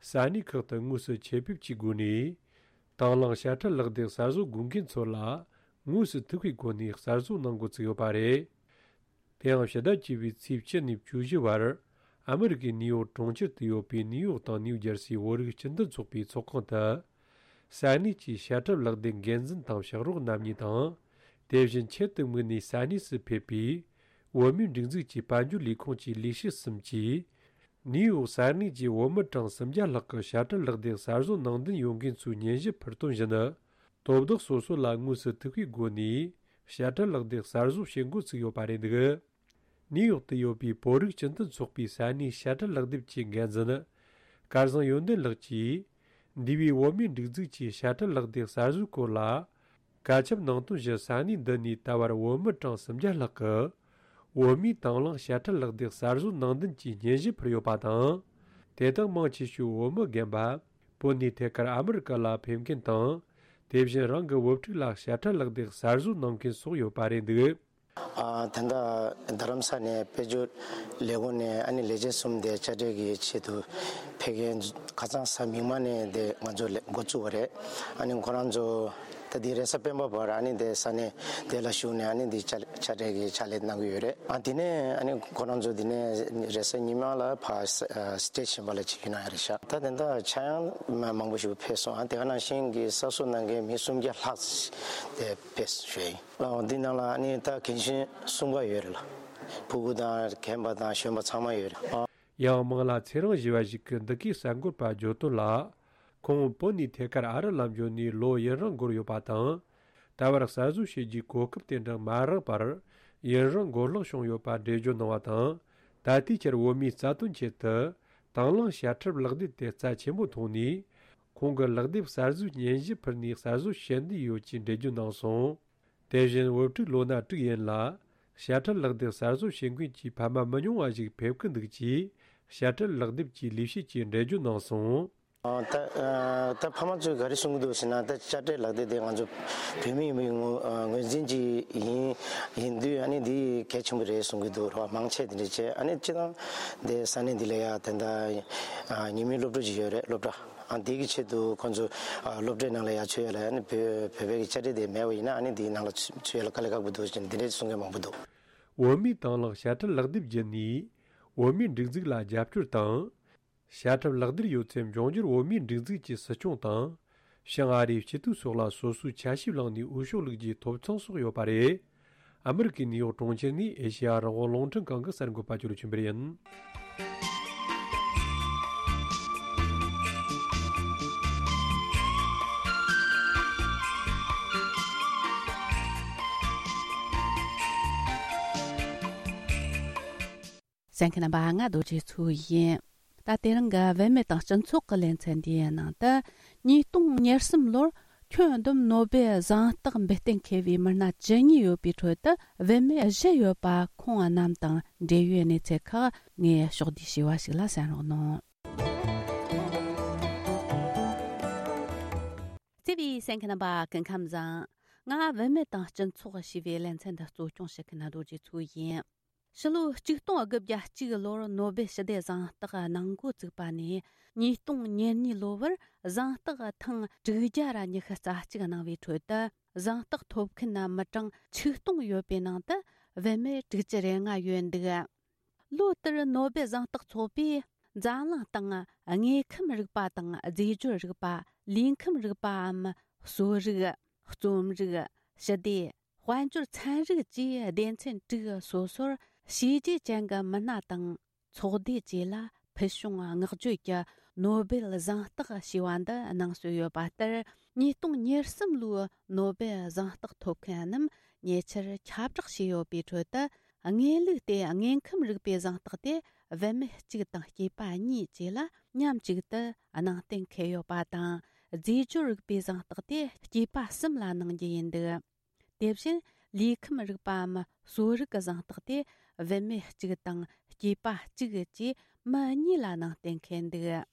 ས་གནས་ཁག་ཏུ་དངོས་སུ་ཆེད་ཕེབས་ཀྱི་སྒོ་ནས། དང་བླངས་དཔྱ་ཁྲལ་ལག་དེབ་གསར་བཟོ་དགོས་མཁན་ཚོ་ལ། དངོས་སུ་ཐུག་པའི་སྒོ་ནས་གསར་བཟོ་གནང་འགོ་བཙུགས་ཡོད་པ་རེད། དེ་ཡང་ཕྱི་ཟླ་བཅུ་པའི་ཚེས་བཅུ་ནས་བཅུ་བཞི་བར། ཨ་མི་རི་ཀའི་ནིའུ་ཡོག་གྲོང་ཁྱེར་དུ་ཡོད་པའི་ནིའུ་ཡོག་དང་ནིའུ་ཇར་སིའི་བོད་རིགས་སྤྱི་མཐུན་ཚོགས་པའི་ཚོགས་ཁང་དུ། ས་གནས་ཀྱི་དཔྱ་ཁྲལ་ལག་དེབ་འགན་འཛིན་དང་ཕྱག་རོགས་རྣམ་གཉིས་དང་། དེ་བཞིན་ཆེད་དུ་དམིགས་ནས་ས་གནས་སུ་ཕེབས་པའི་བོད་མིའི་སྒྲིག་འཛུགས་ཀྱི་དཔལ་འབྱོར་ལས་ཁུངས་ཀྱི་ལས་བྱེད་གསུམ་གྱིས། ནིའུ་ཡོག་ས་གནས་ཀྱི་བོད་མི་གྲངས་སུམ་བརྒྱ་ལྷག་གི་དཔྱ་ཁྲལ་ལག་དེབ་གསར་བཟོ་ནང་འདུན་ཡོད་མཁན་ཚོའི་སྙན་ཞུ་ཕུལ་དོན་བཞིན། དོ་བདག་སོ་སོ་ལ་དངོས་སུ་ཐུག་པའི་སྒོ་ནས་དཔྱ་ཁྲལ་ལག་དེབ་གསར་བཟོ་བྱེད་འགོ་ཚུགས་ཡོད་པ་རེད་འདུག་ནིའུ་ཡོག་ཏུ་ཡོད་པའི་བོད་རིགས་སྤྱི་མཐུན་ཚོགས་པའི་ས་གནས་དཔྱ་ཁྲལ་ལག་དེབ་ཀྱི་འགན་འཛིན། སྐལ་བཟང་ཡོན་ཏན་ལགས་ཀྱིས། འདས་པའི་བོད་མིའི་སྒྲིག་འཛུགས་ཀྱི་དཔྱ་ཁྲལ་ལག་དེབ་གསར་བཟོའི་སྐོར་ལ། བཀའ་ཁྱབ་གནང་དོན་བཞིན་ས་གནས་འདི་ནས་ད་བར་བོད་མི་གྲངས་སུམ་བརྒྱ་ལྷག་གིས། བོད་མིའི་དང་བླངས་དཔྱ་ཁྲལ་ལག་དེབ་གསར་བཟོ་ནང་འདུན་གྱི་སྙན་ཞུ་ཕུལ་ཡོད་པ་དང་། དེ་དག་མང་ཆེ་ཤོས་བོད་མི་རྒན་པ། བོད་ནས་ཐད་ཀར་ཨ་མི་རི་ཀ་ལ་ཕེབས་མཁན་དང་། དེ་བཞིན་རང་གི་བུ་ཕྲུག་ལ་དཔྱ་ཁྲལ་ལག་དེབ་གསར་བཟོ་གནང་མཁན་སོགས་ཡོད་པ་རེད་འདུག་ཨ། ད་ལྟ་རྡ་རམ་ས་ནས་དཔལ་འབྱོར་ལས་ཁུངས་ནས་ཨ་ནི་ལས་བྱེད་གསུམ་དེ་དཔྱ་ཁྲལ་གྱི་ཆེད་དུ་ཕེབས་མཁན་ཁ་སང་གཟའ་མིག་དམར་ནས་དེ་ང་ཚོ་ལས་འགོ་བཙུགས་པ་རེད། ཨ་ནི་ཁོ་རང་ཚོ་ད་དེ་རེས་གཟའ་སྤེན་པ་བར་ཨ་ནི་དེ་ས་གནས་དེ་ལ་བཞུགས་ནས་ཨ་ནི་དེ་དཔྱ་དཔྱ་ཁྲལ་གྱི་ཕྱག་ལས་གནང་གི་ཡོད་རེད། ཨ་དེ་ནས་ཨ་ནི་ཁོ་རང་ཚོ་དེ་ནས་རེས་གཟའ་ཉི་མ་ལ་ཕར་ས་ཨ་སི་ཊེཊ་གཞན་པ་ལ་ཕྱིན་གྱི་གནང་ཡ་རེད་ཤག་ད་དེ་འདྲ་ཆ་ཡང་མ་མང་པོ་ཞིག་ཕེབས་སོང་། ཨ་དེ་ག་ནང་བཞིན་གྱི་གསར་བཟོ་གནང་མཁན་མི་སུམ་བརྒྱ་ལྷག་དེ་ཕེབས་ཞུས་ཡིན། ཨ་འདི་ནང་ལ་ཨ་ནི་ད་རྒན་གཞོན་གསུམ་ཀ་ཡོད་རེད་ལ། ཕྲུ་གུ་དང་རྒན་པ་དང་གཞོན་པ་ཚང་མ་ཡོད་རེད། ཨ། ཡང་མིང་ལ་ཚེ་རིང་ཞུ་བ་ཞིག་གིས་འདི་གའི་གསར་འགོད་པར་བརྗོད་དོན་ལ། ཁོང་བོད་ནས་ཐད་ཀར་ཨ་རི་ལ་འབྱོར་ནས་ལོ་ཡུན་རིང་འགོར་ཡོད་པ་དང་། ད་བར་གསར་བཟོ་བྱེད་རྒྱུའི་གོ་སྐབས་དེ་འདྲ་མ་རག་པར་ཡུན་རིང་འགོར་ལྷག་བྱུང་ཡོད་པ་འགྲེལ་བརྗོད་གནང་བ་དང་། ད་ལྟའི་ཆར་བོད་མིའི་རྩ་དོན་ཆེད་དུ་དང་བླངས་དཔྱ་ཁྲལ་ལག་དེབ་དེ་རྩ་ཆེན་པོ་མཐོང་ནས། ཁོང་གིས་ལག་དེབ་གསར་བཟོའི་སྙན་ཞུ་ཕུལ་ནས་གསར་བཟོ་བྱེད་འདོད་ཡོད་ཅེས་འགྲེལ་བརྗོད་གནང་སོང་། དེ་བཞིན་བུ་ཕྲུག་ལོ་ན་དྲུག་ཡན་ལ་དཔྱ་ཁྲལ་ལག་དེབ་གསར་བཟོ་བྱེད་མཁན་གྱི་ཕ་མ་མི་ཉུང་བ་ཞིག་ཕེབས་ཀྱི་འདུག་ཅེས་དཔྱ་ཁྲལ་ལག་དེབ་ཀྱི་ལས་བྱེད་ཀྱིས་འགྲེལ་བརྗོད་གནང་སོང་། ཨ། ད་ཨ། ད་ཕ་མ་ཚོས་ག་རེ་གསུང་གི་འདུག་ཟེར་ན། ད་དཔྱ་ཁྲལ་ལག་དེབ་དེ་ང་ཚོ་བོད་མི་ཡིན་པའི་ངོས་ཨ་ངོས་འཛིན་གྱི་ཡིན་ཡིན་དུས། ཨ་ནི་འདི་གལ་ཆེན་པོ་རེད་གསུང་གི་འདུག་རོགས་མང་ཆེ་དེ་འདྲ་བྱས། ཨ་ནི་སྤྱིར་བཏང་དེ་ས་གནས་འདི་ལ་ཡ་དེ་འདྲ་ཨ་ཉི་མའི་སློབ་ཕྲུག་ཅིག་ཡོད་རེད། སློབ་གྲྭ། ཨ་འདི་གི་ཆེད་དུ་ཁོང་ཚོ་ཨ་སློབ་གྲྭའི་ནང་ལ་ཡར་ཚུད་ཡ་ལ། ཨ་ནི་བོད་བོད་པའི་གི་དཔྱ་ཁྲལ་དེ་མེད་པ་ཡིན་ན། ཨ་ནི་འདིའི་ནང་ལ་ཚུད་ཚུད་ཡ་ལ་དཀའ་ལས་ཁག་པོ་འདུག་ཅེས་འདི་འདྲའི་གསུང་མཁན་མང་པོ་འདུག་བོད་མིའི་དང་བླངས་དཔྱ་ཁྲལ་ལག་དེབ་བརྒྱུད་ནས་བོད་མིའི་སྒྲིག་འཛུགས་ལ་རྒྱབ་སྐྱོར་དང་། དཔྱ་ཁྲལ་ལག་དེབ་ཡོད་ཚད་འབྱུང་འགྱུར་བོད་མིའི་སྒྲིག་འཛུགས་ཀྱི་སྲིད་སྐྱོང་དང་། བྱང་ཨ་རིའི་སྤྱི་འཐུས་སོགས་ལ་སོ་སོའི་ཆ་ཞིབ་བླངས་ནས་འོས་ཤོག་བླུག་རྒྱུའི་ཐོབ་ཐང་སོགས་ཡོད་པ་རེད། ཨ་མི་རི་ཀའི་ནིའུ་ཡོག་གྲོང་ཁྱེར་ནས་ཨེ་ཤེ་ཡ་རང་དབང་རླུང་འཕྲིན་ཁང་གི་གསར་འགོད་པ་ཇོ་ལེབ་ཆོས་འཕེལ་ཡིན། གསན་མཁན་རྣམ་པ། ང་རྡོ་རྗེ་མཚོ་ཡིན། ད་དེ་རིང་གི་བུད་མེད་དང་སྤྱི་ཚོགས་ཀྱི་ལེ་ཚན་འདིའི་ནང་དུ། ཉིས་སྟོང་ཉེར་གསུམ་ལོར་ཁྱོན་བསྡོམས་ནོ་སྦེལ་གཟེངས་རྟགས་འབུལ་གཏན་འཁེལ་བའི་མི་སྣ་བཅུ་གཉིས་ཡོད་པའི་ཁྲོད་དུ། བུད་མེད་བཞི་ཡོད་པ་ཁོང་རྣམས་དང་འབྲེལ་ཡོད་གནས་ཚུལ་ཁག་ངས་ཕྱོགས་བསྡུས་ཞུས་པ་ཞིག་ལ་གསན་རོགས་གནང་། བརྩེ་བའི་གསན་མཁན་རྣམ་པ། སྐུ་ཁམས་བཟང་། ང་བུད་མེད་དང་སྤྱི་ཚོགས་ཞེས་པའི་ལེ་ཚན་འདི་གཙོ་སྐྱོང་བྱེད་མཁན་རྡོ་རྗེ་མཚོ་ཡིན། ཕྱི་ལོ་ཆིག་སྟོང་དགུ་བརྒྱ་གཅིག་ལོར་ནོ་སྦེལ་ཞི་བདེ་གཟེངས་རྟགས་གནང་འགོ་བཙུགས་པ་ནས། ཉིས་སྟོང་ཉེར་གཉིས་ལོ་བར་གཟེངས་རྟགས་ཐེངས་དྲུག་བརྒྱ་ར་ཉི་ཤུ་རྩ་གཅིག་གནང་བའི་ཁྲོད་དུ། གཟེངས་རྟགས་ཐོབ་མཁན་མི་གྲངས་ཆིག་སྟོང་ཡོད་པའི་ནང་དུ་བུད་མེད་དྲུག་ཅུ་རེ་ལྔ་ཡོད་འདུག་ལོ་ལྟར་ནོ་སྦེལ་གཟེངས་རྟགས་ཚོགས་པས་འཛམ་གླིང་སྟེང་དངོས་ཁམས་རིག་པ་དང་། རྫས་སྦྱོར་རིག་པ། ལུས་ཁམས་རིག་པའམ། གསོ་རིག། རྩོམ་རིག། ཞི་བདེ། དཔལ་འབྱོར་ཚན་རིག་བཅས་སྡེ་ཚན་དྲུག་སོ་སོར་བྱས་རྗེས་ཅན་གྱི་མི་སྣ་དང་ཚོགས་སྡེ་བཅས་ལ་ཕུལ་བྱུང་བསྔགས་བརྗོད་ཀྱི་ནོ་སྦེལ་གཟེངས་རྟགས་ཞེས་པ་འདི་གནང་སྲོལ་ཡོད་པ་ལྟར། ཉིས་སྟོང་ཉེར་གསུམ་ལོའི་ནོ་སྦེལ་གཟེངས་རྟགས་ཐོབ་མཁན་རྣམས་ཉེ་ཆར་ཁྱབ་བསྒྲགས་བྱས་ཡོད་པའི་ཁྲོད་དུ། དངོས་ལུགས་དེ་དངོས་ཁམས་རིག་པའི་གཟེངས་རྟགས་དེ་ བུད་མེད་གཅིག་དང་སྐྱེས་པ་གཉིས་བཅས་ལ་མཉམ་གཅིག་ཏུ་ནང་བསྟན་འཁེལ་ཡོད་པ་དང་། རྫས་སྦྱོར་རིག་པའི་གཟེངས་རྟགས་དེ་སྐྱེས་པ་གསུམ་ལ་གནང་རྒྱུ་ཡིན་འདུག། དེ་བཞིན་ལུས་ཁམས་རིག་པའམ་གསོ་རིག་གི་གཟེངས་རྟགས་དེ་བུད་མེད་གཅིག་དང་སྐྱེས་པ་གཅིག་བཅས་མི་གཉིས་ལ་གནང་བསྟན་འཁེལ་འདུག།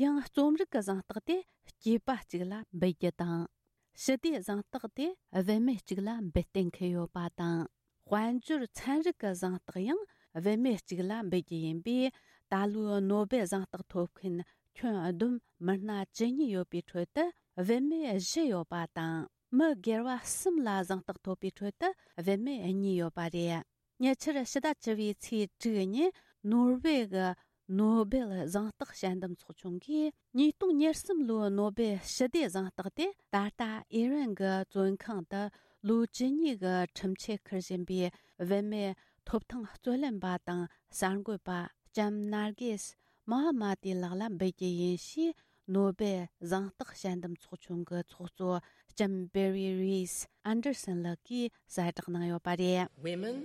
ཡང་རྩོམ་རིག་གི་གཟེངས་རྟགས་དེ་སྐྱེས་པ་གཅིག་ལ་འབུལ་རྒྱུ་དང་། ཞི་བདེའི་གཟེངས་རྟགས་དེ་བུད་མེད་གཅིག་ལ་འབུལ་གཏན་འཁེལ་ཡོད་པ་དང་། དཔལ་འབྱོར་ཚན་རིག་གི་གཟེངས་རྟགས་ཡང་བུད་མེད་གཅིག་ལ་འབུལ་རྒྱུ་ཡིན་པས། ད་ལོའི་ནོ་བེལ་གཟེངས་རྟགས་ཐོབ་མཁན་ཁྱོན་བསྡོམས་མི་སྣ་བཅུ་གཉིས་ཡོད་པའི་ཁྲོད་དུ་བུད་མེད་བཞི་ཡོད་པ་དང་། མི་སྒེར་བ་གསུམ་ལ་གཟེངས་རྟགས་ཐོབ་པའི་ཁྲོད་དུ་བུད་མེད་གཉིས་ཡོད་པ་རེད། ཉེ་ཆར་ཕྱི་ཟླ་བཅུ་བའི་ཚེས་དྲུག་ཉིན་ནོར་ཝེ་གི་ནོ་བེལ་གཟེངས་རྟགས་དཔྱད་འདེམས་ཚོགས་ཆུང་གིས་ཉིས་སྟོང་ཉེར་གསུམ་ལོའི་ནོ་བེལ་ཞི་བདེའི་གཟེངས་རྟགས་དེ་ད་ལྟ་ཨི་རན་གྱི་བཙོན་ཁང་དུ་ལོ་བཅུ་གཉིས་ཀྱི་ཁྲིམས་ཆད་འཁུར་བཞིན་པའི་བུད་མེད་ཐོབ་ཐང་རྩོད་ལེན་པ་དང་གསར་འགོད་པ་ལྕམ་ནར་གེས་མོ་ཧ་མ་ཏི་ལགས་ལ་འབུལ་རྒྱུ་ཡིན་ཞེས། ནོ་བེལ་གཟེངས་རྟགས་དཔྱད་འདེམས་ཚོགས་ཆུང་གི་ཚོགས་གཙོ་ལྕམ་བེ་རི་རིས་ཨན་ཌར་སན་ལགས་ཀྱིས་གསལ་བསྒྲགས་གནང་ཡོད་པ་རེད། Women,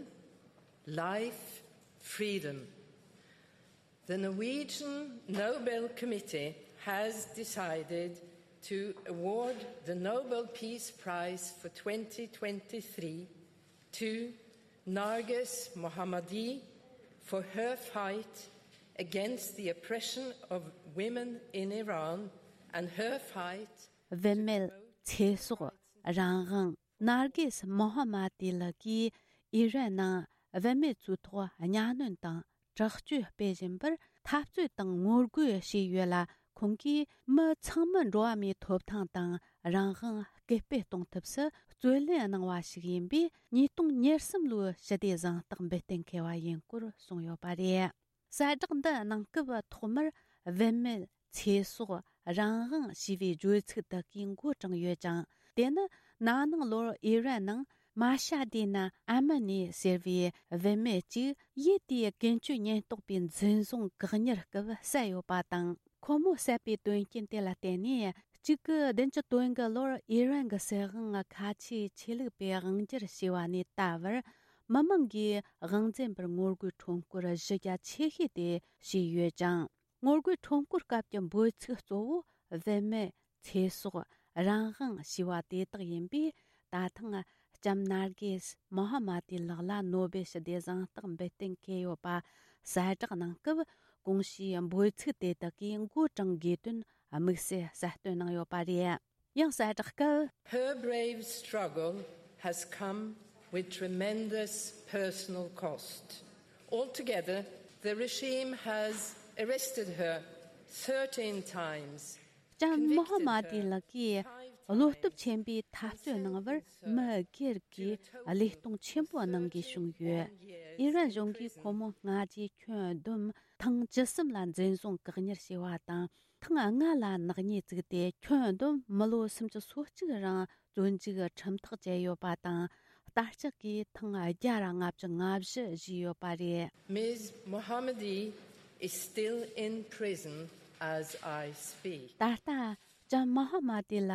life, freedom. The Norwegian Nobel Committee has decided to award the Nobel Peace Prize for twenty twenty-three to Narges Mohammadi for her fight against the oppression of women in Iran and her fight. བུད་མེད་ཚེ་སྲོག་རང་དབང་། ནར་གེས་མོ་ཧ་མ་ཏི་ལགས་ཀྱིས་ཨི་རན་ནང་བུད་མེད་ཚོའི་ཐོག་གཉའ་གནོན་དང་དྲག་སྤྱོད་སྤེལ་བཞིན་པར་འཐབ་རྩོད་དང་ངོ་རྒོལ་བྱས་ཡོད་ལ། ཁོང་གིས་མི་ཚང་མར་འགྲོ་བ་མིའི་ཐོབ་ཐང་དང་རང་དབང་སྐུལ་སྤེལ་གཏོང་ཐབས་སུ་རྩོད་ལེན་གནང་བ་ཞིག་ཡིན་པས། ཉིས་སྟོང་ཉེར་གསུམ་ལོའི་ཞི་བདེའི་གཟེངས་རྟགས་འབུལ་གཏན་འཁེལ་བ་ཡིན་སྐོར་གསུངས་ཡོད་པ་རེད། གསལ་བསྒྲགས་འདི་གནང་སྐབས་ཐོག་མར་བུད་མེད་ཚེ་སྲོག་རང་དབང་ཞེས་པའི་བརྗོད་ཚིག་དག་གིས་འགོ་དྲངས་ཡོད་ཅིང་། དེ་ནི་ན་ནིང་ལོར་ཨི་རན་ནང་མ་ཤ་དེ་ན་ཨ་མི་ནི་ཟེར་བའི་བུད་མེད་ཅིག་ཡུལ་དེའི་ཀུན་སྤྱོད་ཉེན་རྟོག་པས་འཛིན་བཟུང་བཀག་ཉར་སྐབས་བསད་ཡོད་པ་དང་། ཁོ་མོ་བསད་པའི་དོན་རྐྱེན་དེ་ལ་བརྟེན་ནས་གཅིག་དགུ་བདུན་ཅུ་དོན་དགུ་ལོར་ཨི་རན་གྱི་སྲིད་དབང་ཁ་ཆེའི་ཆོས་ལུགས་པས་དབང་སྒྱུར་བྱས་པ་ནས་ད་བར་མི་མང་གིས་དབང་འཛིན་པར་ངོ་རྒོལ་ཁྲོམ་སྐོར་གཞི་རྒྱ་ཆེ་ཤོས་དེ་བྱས་ཡོད་ཅིང་། ངོ་རྒོལ་ཁྲོམ་སྐོར་སྐབས་ཀྱི་འབོད་ཚིག་གཙོ་བོ་བུད་མེད་ཚེ་སྲོག་རང་དབང་ཞེས་པ་དེ་དག་ཡིན་པས། ད་ཐེངས་ལྕམ་ནར་གེས་མོ་ཧ་མ་ཏི་ལགས་ལ་ནོ་བེལ་ཞི་བདེའི་གཟེངས་རྟགས་འབུལ་གཏན་འཁེལ་ཡོད་པ་གསལ་བསྒྲགས་གནང་སྐབས། གོང་ཞུས་འབོད་ཚིག་དེ་དག་གིས་མགོ་དྲངས་དགོས་དོན་དམིགས་བསལ་གསལ་སྟོན་གནང་ཡོད་པ་རེད། ཡང་གསལ་བསྒྲགས་སྐབས། Her brave struggle has come with tremendous personal cost. Altogether, the regime has arrested her thirteen times. ལྕམ་མོ་ཧ་མ་ཏི་ལགས་ཀྱིས་བློ་སྟོབས་ཆེན་པོས་འཐབ་རྩོད་གནང་བར་མི་སྒེར་གྱི་བློས་གཏོང་ཆེན་པོ་གནང་དགོས་བྱུང་ཡོད། ཨི་རན་གཞུང་གིས་ཁོ་མོ་སྔ་རྗེས་ཁྱོན་བསྡོམས་ཐེངས་བཅུ་གསུམ་ལ་འཛིན་བཟུང་བཀག་ཉར་བྱས་པ་དང་། ཐེངས་ལྔ་ལ་ནག་ཉེས་བཙུགས་ཏེ། ཁྱོན་བསྡོམས་མི་ལོ་སུམ་ཅུ་སོ་གཅིག་རིང་བཙོན་འཇུག་ཁྲིམས་ཐག་བཅད་ཡོད་པ་དང་། ལྟ་ལྕག་གིས་ཐེངས་བརྒྱ་ར་ལྔ་བཅུ་ང་བཞི་བཞེས་ཡོད་པ་རེད། Miz Mohammadi is still in prison as I speak. ད་ལྟ་ལྕམ་མོ་ཧ་མ་ཏི་ལ་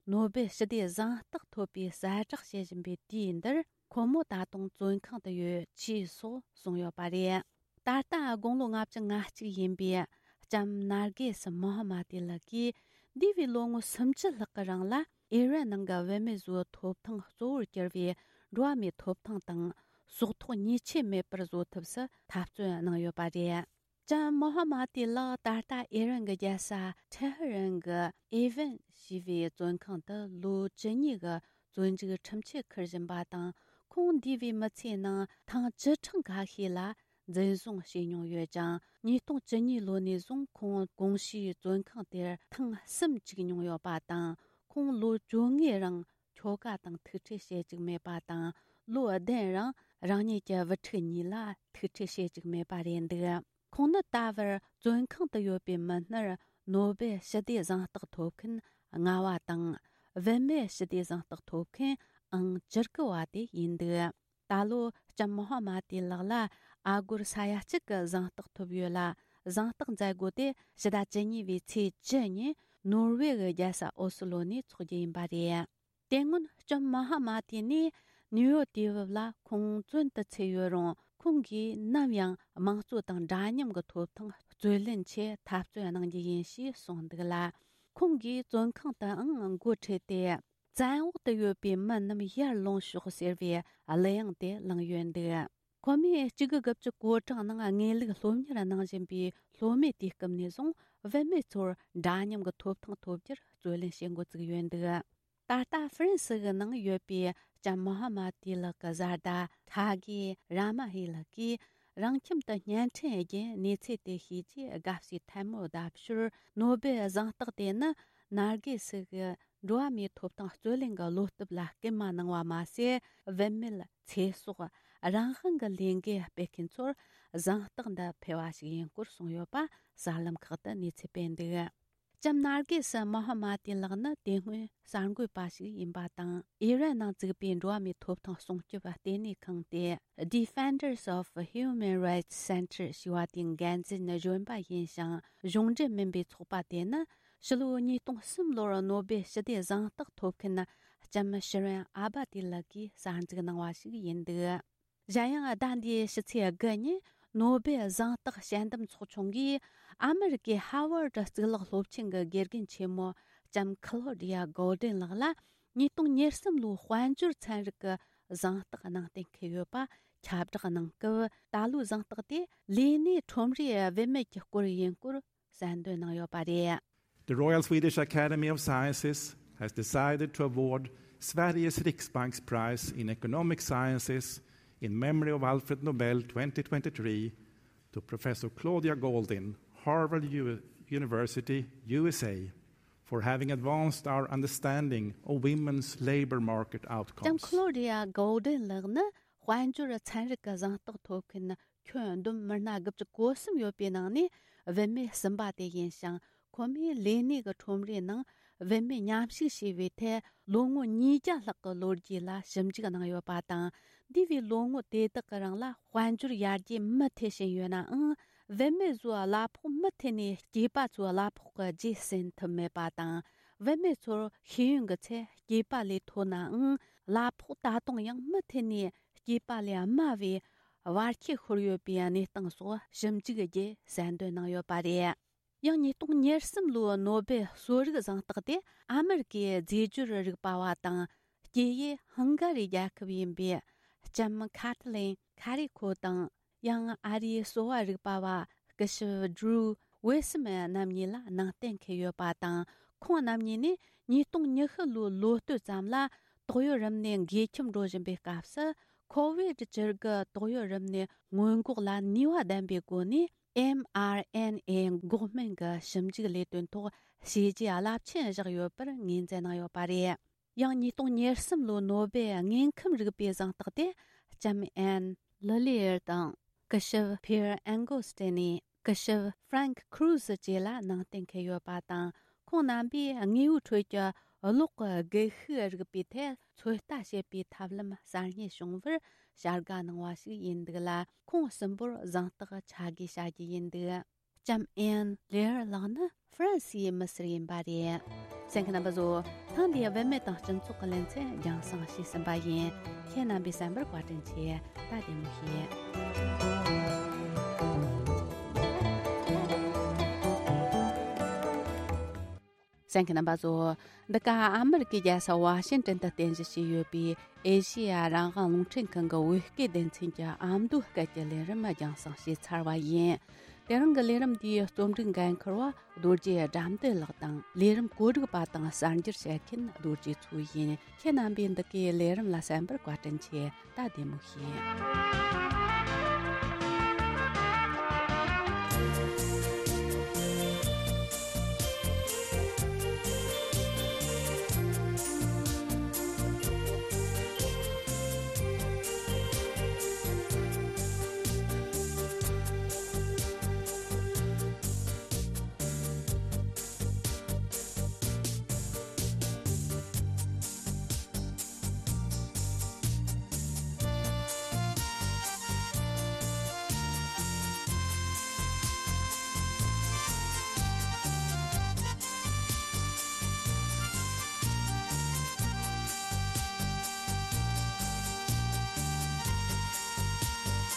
ནོ་བེལ་ཞི་བདེའི་གཟེངས་རྟགས་ཐོབ་པའི་གསལ་བསྒྲགས་བྱེད་བཞིན་པའི་དུས་འདིར། ཁོ་མོ་ད་དུང་བཙོན་ཁང་དུ་ཡོད་ཅེས་སོགས་གསུངས་ཡོད་པ་རེད། ད་ལྟ་དགུང་ལོ་ལྔ་བཅུ་ང་གཅིག་ཡིན་པའི་ལྕམ་ནར་གེ་སི་མོ་ཧ་མ་ཏི་ལགས་ཀྱིས། འདས་པའི་ལོ་ངོ་སུམ་ཅུ་ལྷག་གི་རིང་ལ་ཨི་རན་ནང་གི་བུད་མེད་ཚོའི་ཐོབ་ཐང་གཙོ་བོར་གྱུར་བའི་འགྲོ་བ་མིའི་ཐོབ་ཐང་དང་། སྲོག་ཐོག་ཉེས་ཆད་མེད་པར་བཟོ་ཐབས་སུ་འཐབ་རྩོད་གནང་ཡོད་པ་རེད། ལྕམ་མོ་ཧ་མ་ཏི་ལགས་ད་ལྟ་ཨི་རན་གྱི་རྒྱལ་ས་ཐེ་ཧི་རན་གྱི་ཨེ་ཝན་ཞེས་པའི་བཙོན་ཁང་དུ་ལོ་བཅུ་གཉིས་ཀྱི་བཙོན་འཇུག་ཁྲིམས་ཆད་འཁུར་བཞིན་པ་དང་། ཁོང་འདས་པའི་མི་ཚེའི་ནང་ཐེངས་བཅུ་ཕྲག་འགའ་ཤས་ལ་འཛིན་བཟུང་བྱས་མྱོང་ཡོད་ཅིང་། ཉིས་སྟོང་བཅུ་གཉིས་ལོ་ནས་བཟུང་ཁོང་གོང་ཞུས་བཙོན་ཁང་དེར་ཐེངས་གསུམ་བཅུག་མྱོང་ཡོད་པ་དང་། ཁོང་ལོ་བཅོ་ལྔའི་རིང་ཁྱོ་ག་དང་ཐུག་འཕྲད་བྱེད་བཅུག་མེད་པ་དང་། ལོ་བདུན་རིང་རང་ཉིད་ཀྱི་བུ་ཕྲུག་གཉིས་ལ་ཐུག་འཕྲད་བྱེད་བཅུག་མེད་པ་རེད་འདུག། ཁོང་ནི་ད་བར་བཙོན་ཁང་དུ་ཡོད་པའི་མི་སྣར་ནོ་བེལ་ཞི་བདེའི་གཟེངས་རྟགས་ཐོབ་མཁན་ལྔ་བ་དང་། བུད་མེད་ཞི་བདེའི་གཟེངས་རྟགས་ཐོབ་མཁན་ཨང་བཅུ་དགུ་བ་དེ་ཡིན་འདུག། ད་ལོ་ལྕམ་མོ་ཧ་མ་ཏི་ལགས་ལ་ཨ་སྒོར་ས་ཡ་གཅིག་གི་གཟེངས་རྟགས་ཐོབ་ཡོད་ལ། གཟེངས་རྟགས་མཛད་སྒོ་དེ་ཕྱི་ཟླ་བཅུ་གཉིས་པའི་ཚེས་བཅུ་ཉིན་ནོར་ཝེ་གི་རྒྱལ་ས་ཨོ་སི་ལོ་ནས་འཚོགས་རྒྱུ་ཡིན་པ་རེད། དེ་སྔོན་ལྕམ་མོ་ཧ་མ་ཏི་ནི་ནིའུ་ཡོག་དུས་བབ་ལ་ཁོང་བཙོན་དུ་ཚུད་ཡོད་རུང་ ཁོང་གིས་ནམ་ཡང་དམངས་གཙོ་དང་འདྲ་མཉམ་གྱི་ཐོབ་ཐང་རྩོད་ལེན་ཆེད་འཐབ་རྩོད་གནང་རྒྱུ་ཡིན་ཞེས་གསུངས་འདུག་ལ། ཁོང་གིས་བཙོན་ཁང་དུའང་འགོ་ཁྲིད་དེ། བཙན་འོག་ཏུ་ཡོད་པའི་མི་རྣམས་ཡར་ལོངས་ཤོག་ཟེར་བའི་གླུ་དབྱངས་དེ་བླངས་ཡོད་འདུག་ཁོ་མོས་གཅིག་དགུ་དགུ་བཅུ་གོ་གྲངས་ནང་དངོས་ལུགས་སློབ་གཉེར་གནང་བཞིན་པའི་སློབ་མའི་དུས་སྐབས་ནས་བཟུང་བུད་མེད་ཚོར་འདྲ་མཉམ་གྱི་ཐོབ་ཐང་ཐོབ་རྒྱུར་རྩོད་ལེན་བྱེད་འགོ་བཙུགས་ཡོད་འདུག་ད་ལྟ་ཧྥ་རན་སི་གི་ནང་ཡོད་པའི་ལྕམ་མོ་ཧ་མ་ཏི་ལགས་ཀྱི་བཟའ་ཟླ་ཐ་གི་ར་མ་ཧི་ལགས་ཀྱིས་རང་ཁྱིམ་དུ་བརྙན་འཕྲིན་བརྒྱུད་གནས་ཚུལ་དེ་ཤེས་རྗེས་དགའ་བསུའི་ཐལ་མོ་བརྡབ་ཞོར། ནོ་སྦེལ་གཟེངས་རྟགས་དེ་ནི་ནར་གི་སི་གི་འགྲོ་བ་མིའི་ཐོབ་ཐང་རྩོད་ལེན་གྱི་བློ་སྟོབས་ལ་སྐུལ་མ་གནང་བ་མ་ཟད། བུད་མེད་ཚེ་སྲོག་རང་དབང་གི་ལས་འགུལ་སྤེལ་མཁན་ཚོར་གཟེངས་རྟགས་འདི་ཕུལ་བ་ཞིག་ཡིན་སྐོར་གསུངས་ཡོད་པ་གསར་ལམ་ཁག་ཏུ་གནས་ཚུལ་སྤེལ་འདུག་ལྕམ་ནར་གི་སི་མོ་ཧ་མ་ཏི་ལགས་ནི་དེ་སྔོན་གསར་འགོད་པ་ཞིག་ཡིན་པ་དང་། ཨི་རན་ནང་བཙུགས་པའི་འགྲོ་བ་མིའི་ཐོབ་ཐང་སྲུང་སྐྱོབ་ལྟེ་གནས་ཁང་སྟེ། Defenders of Human Rights Center ཞེས་པ་དེའི་འགན་འཛིན་གཞོན་པ་ཡིན་ཞིང་། གཞུང་འབྲེལ་མིན་པའི་ཚོགས་པ་དེ་ནི་ཕྱི་ལོ་ཉིས་སྟོང་གསུམ་ལོར་ནོ་སྦེལ་ཞི་བདེ་གཟེངས་རྟགས་ཐོབ་མཁན་ལྕམ་ཤི་རན་ཨ་བ་ཏི་ལགས་ཀྱིས་གསར་འཛུགས་གནང་བ་ཞིག་ཡིན་འདུག་གཞན་ཡང་ཟླ་འདིའི་ཕྱི་ཚེས་དགུ་ཉིན་ནོ་སྦེལ་གཟེངས་རྟགས་དཔྱད་འདེམས་ཚོགས་ཆུང་གིས་ཨ་མེ་རི་ཀའི་ཧ་ཝར་ཌི་གཙུག་ལག་སློབ་ཆེན་གྱི་དགེ་རྒན་ཆེན་མོ་ལྕམ་ཁི་ལོ་ཌི་ཡ་གོལ་ཌེན་ལགས་ལ་ཉིས་སྟོང་ཉེར་གསུམ་ལོའི་དཔལ་འབྱོར་ཚན་རིག་གི་གཟེངས་རྟགས་གནང་གཏན་འཁེལ་ཡོད་པ་ཁྱབ་བསྒྲགས་གནང་སྐབས། ད་ལོའི་གཟེངས་རྟགས་དེ་ལས་གནས་ཁྲོམ་རའི་བུད་མེད་ཀྱི་སྐོར་ཡིན་སྐོར་གསལ་འདོན་གནང་ཡོད་པ་རེད། The Royal Swedish Academy of Sciences has decided to award Sveriges Riksbanks Prize in Economic Sciences in memory of Alfred Nobel twenty twenty-three to Professor Claudia Goldin, Harvard U- University, U S A, for having advanced our understanding of women's labor market outcomes. ལྕམ་ཁི་ལོ་ཌི་ཡ་གོལ་ཌེན་ལགས་ནི་དཔལ་འབྱོར་ཚན་རིག་གི་གཟེངས་རྟགས་ཐོབ་མཁན་ཁྱོན་བསྡོམས་མི་སྣ་དགུ་བཅུ་གོ་གསུམ་ཡོད་པའི་ནང་ནས་བུད་མེད་གསུམ་པ་དེ་ཡིན་ཞིང་། ཁོ་མོས་ལས་གནས་ཀྱི་ཁྲོམ་རའི་ནང་བུད་མེད་མཉམ་ཞུགས་བྱས་པའི་ཐད་ལོ་ངོ་ཉིས་བརྒྱ་ལྷག་གི་ལོ་རྒྱུས་ལ་ཞིབ་འཇུག་གནང་ཡོད་པ་དང་། འདས་པའི་ལོ་ངོ་དེ་དག་གི་རིང་ལ་དཔལ་འབྱོར་ཡར་རྒྱས་མུ་མཐུད་ཕྱིན་ཡོད་ནའང་། བུད་མེད་ཚོས་གླ་ཕོགས་མུ་མཐུད་ནས་སྐྱེས་པ་ཚོའི་གླ་ཕོགས་ཀྱི་རྗེས་ཟིན་ཐུབ་མེད་པ་དང་། བུད་མེད་ཚོར་ཤེས་ཡོན་གྱི་ཚད་སྐྱེས་པ་ལས་མཐོ་ནའང་། གླ་ཕོགས་ད་དུང་ཡང་མུ་མཐུད་ནས་སྐྱེས་པ་ལས་དམའ་བའི་བར་ཁྱད་ཤོར་ཡོད་པའི་གནས་སྟངས་སོགས་ཞིབ་འཇུག་བརྒྱུད་གསལ་འདོན་གནང་ཡོད་པ་རེད། ཡང་ཉིས་སྟོང་ཉེར་གསུམ་ལོའི་ནོ་སྦེལ་གསོ་རིག་གཟེངས་རྟགས་དེ་ཨ་མེ་རི་ཀའི་རྫས་སྦྱོར་རིག་པ་བ་དང་། སྐྱེས་ཡུལ་ཧང་ག་རི་རྒྱལ་ཁབ་ཡིན་པའི་ལྕམ་ཁ་ཐི་ལིན་ཁ་རི་ཁོ་དང་། ཡང་ཨ་རིའི་གསོ་བ་རིག་པ་བ་སྐུ་ཞབས་ཌྲུ་ཝེ་སི་མན་རྣམ་གཉིས་ལ་གནང་གཏན་འཁེལ་ཡོད་པ་དང་། ཁོང་རྣམ་གཉིས་ནི་ཉིས་སྟོང་ཉི་ཤུ་ལོའི་ལོ་སྟོད་ཙམ་ལ་ཏོག་དབྱིབས་རིམས་ནད་འགོས་ཁྱབ་འགྲོ་བཞིན་པའི་སྐབས་སུ། ཁོ་ཝིད་བཅུ་དགུ་ཏོག་དབྱིབས་རིམས་ནད་སྔོན་འགོག་ལ་ནུས་པ་ལྡན་པའི་སྒོ་ནས། ཨེམ་ཨར་ཨེན་ཨེ་འགོག་སྨན་གྱི་ཞིབ་འཇུག་ལས་དོན་ཐོག་བྱས་རྗེས་རླབས་ཆེན་བཞག་ཡོད་པར་ངོས་འཛིན་གནང་ཡོད་པ་རེད། ཡང་ཉིས་སྟོང་ཉེར་གསུམ་ལོའི་ནོ་སྦེལ་དངོས་ཁམས་རིག་པའི་གཟེངས་རྟགས་དེ་ལྕམ་ཨན་ལི་ལི་ཡར་དང་། སྐུ་ཞབས་ཕིར་ཨན་གོ་སྟེ་ནི། སྐུ་ཞབས་ཧྥ་རན་ཁུ་རུ་ཟི་བཅས་ལ་གནང་གཏན་འཁེལ་ཡོད་པ་དང་། ཁོང་རྣམ་པས་དངོས་པོའི་ཁྲོད་ཀྱི་གློག་གི་སྒུལ་ཤུགས་རིག་པའི་ཐད་ཚོད་ལྟ་བྱེད་པའི་ཐབས་ལམ་གསར་རྙེད་བྱུང་བར་བྱ་དགའ་གནང་བ་ཞིག་ཡིན་འདུག་ལ། ཁོང་གསུམ་པོར་གཟེངས་རྟགས་ཕྱག་བགོས་བྱ་རྒྱུ་ཡིན་འདུག་ལྕམ་ཨན་ལེར་ལགས་ནི་ཧྥ་རན་སིའི་མི་སེར་ཡིན་པ་རེད། གསན་མཁན་རྣམ་པ་ཚོ། ཐེངས་འདིའི་བུད་མེད་དང་སྤྱི་ཚོགས་ཀྱི་ལེ་ཚན་རྒྱང་སྲིང་བྱས་ཟིན་པ་ཡིན། ཁྱེད་རྣམ་པས་གསན་པར་བཀའ་དྲིན་ཆེ། ད་བདེ་མོ་བྱོས། གསན་མཁན་རྣམ་པ་ཚོ། འདི་ག་ཨ་མེ་རི་ཀའི་རྒྱལ་ས་ཝ་ཤིང་ཏན་དུ་རྟེན་གཞི་བྱས་ཡོད་པའི་ཨེ་ཤེ་ཡ་རང་དབང་རླུང་འཕྲིན་ཁང་གི་བོད་སྐད་སྡེ་ཚན་གྱི་ཨ་མདོའི་སྐད་ཀྱི་ལས་རིམ་རྒྱང་སྲིང་བྱས་ཚར་བ་ཡིན། དེ་རིང་གི་ལས་རིམ་འདིའི་རྩོམ་སྒྲིག་འགན་འཁུར་བ་རྡོ་རྗེ་དགྲ་འདུལ་ལགས་དང་། ལས་རིམ་བཀོད་སྒྲིག་པ་དང་གསར་འགྱུར་བཤད་མཁན་རྡོ་རྗེ་མཚོ་ཡིན། ཁྱེད་རྣམ་པས་འདི་གའི་ལས་རིམ་ལ་གསན་པར་བཀའ་དྲིན་ཆེ། ད་བདེ་མོ་བྱོས།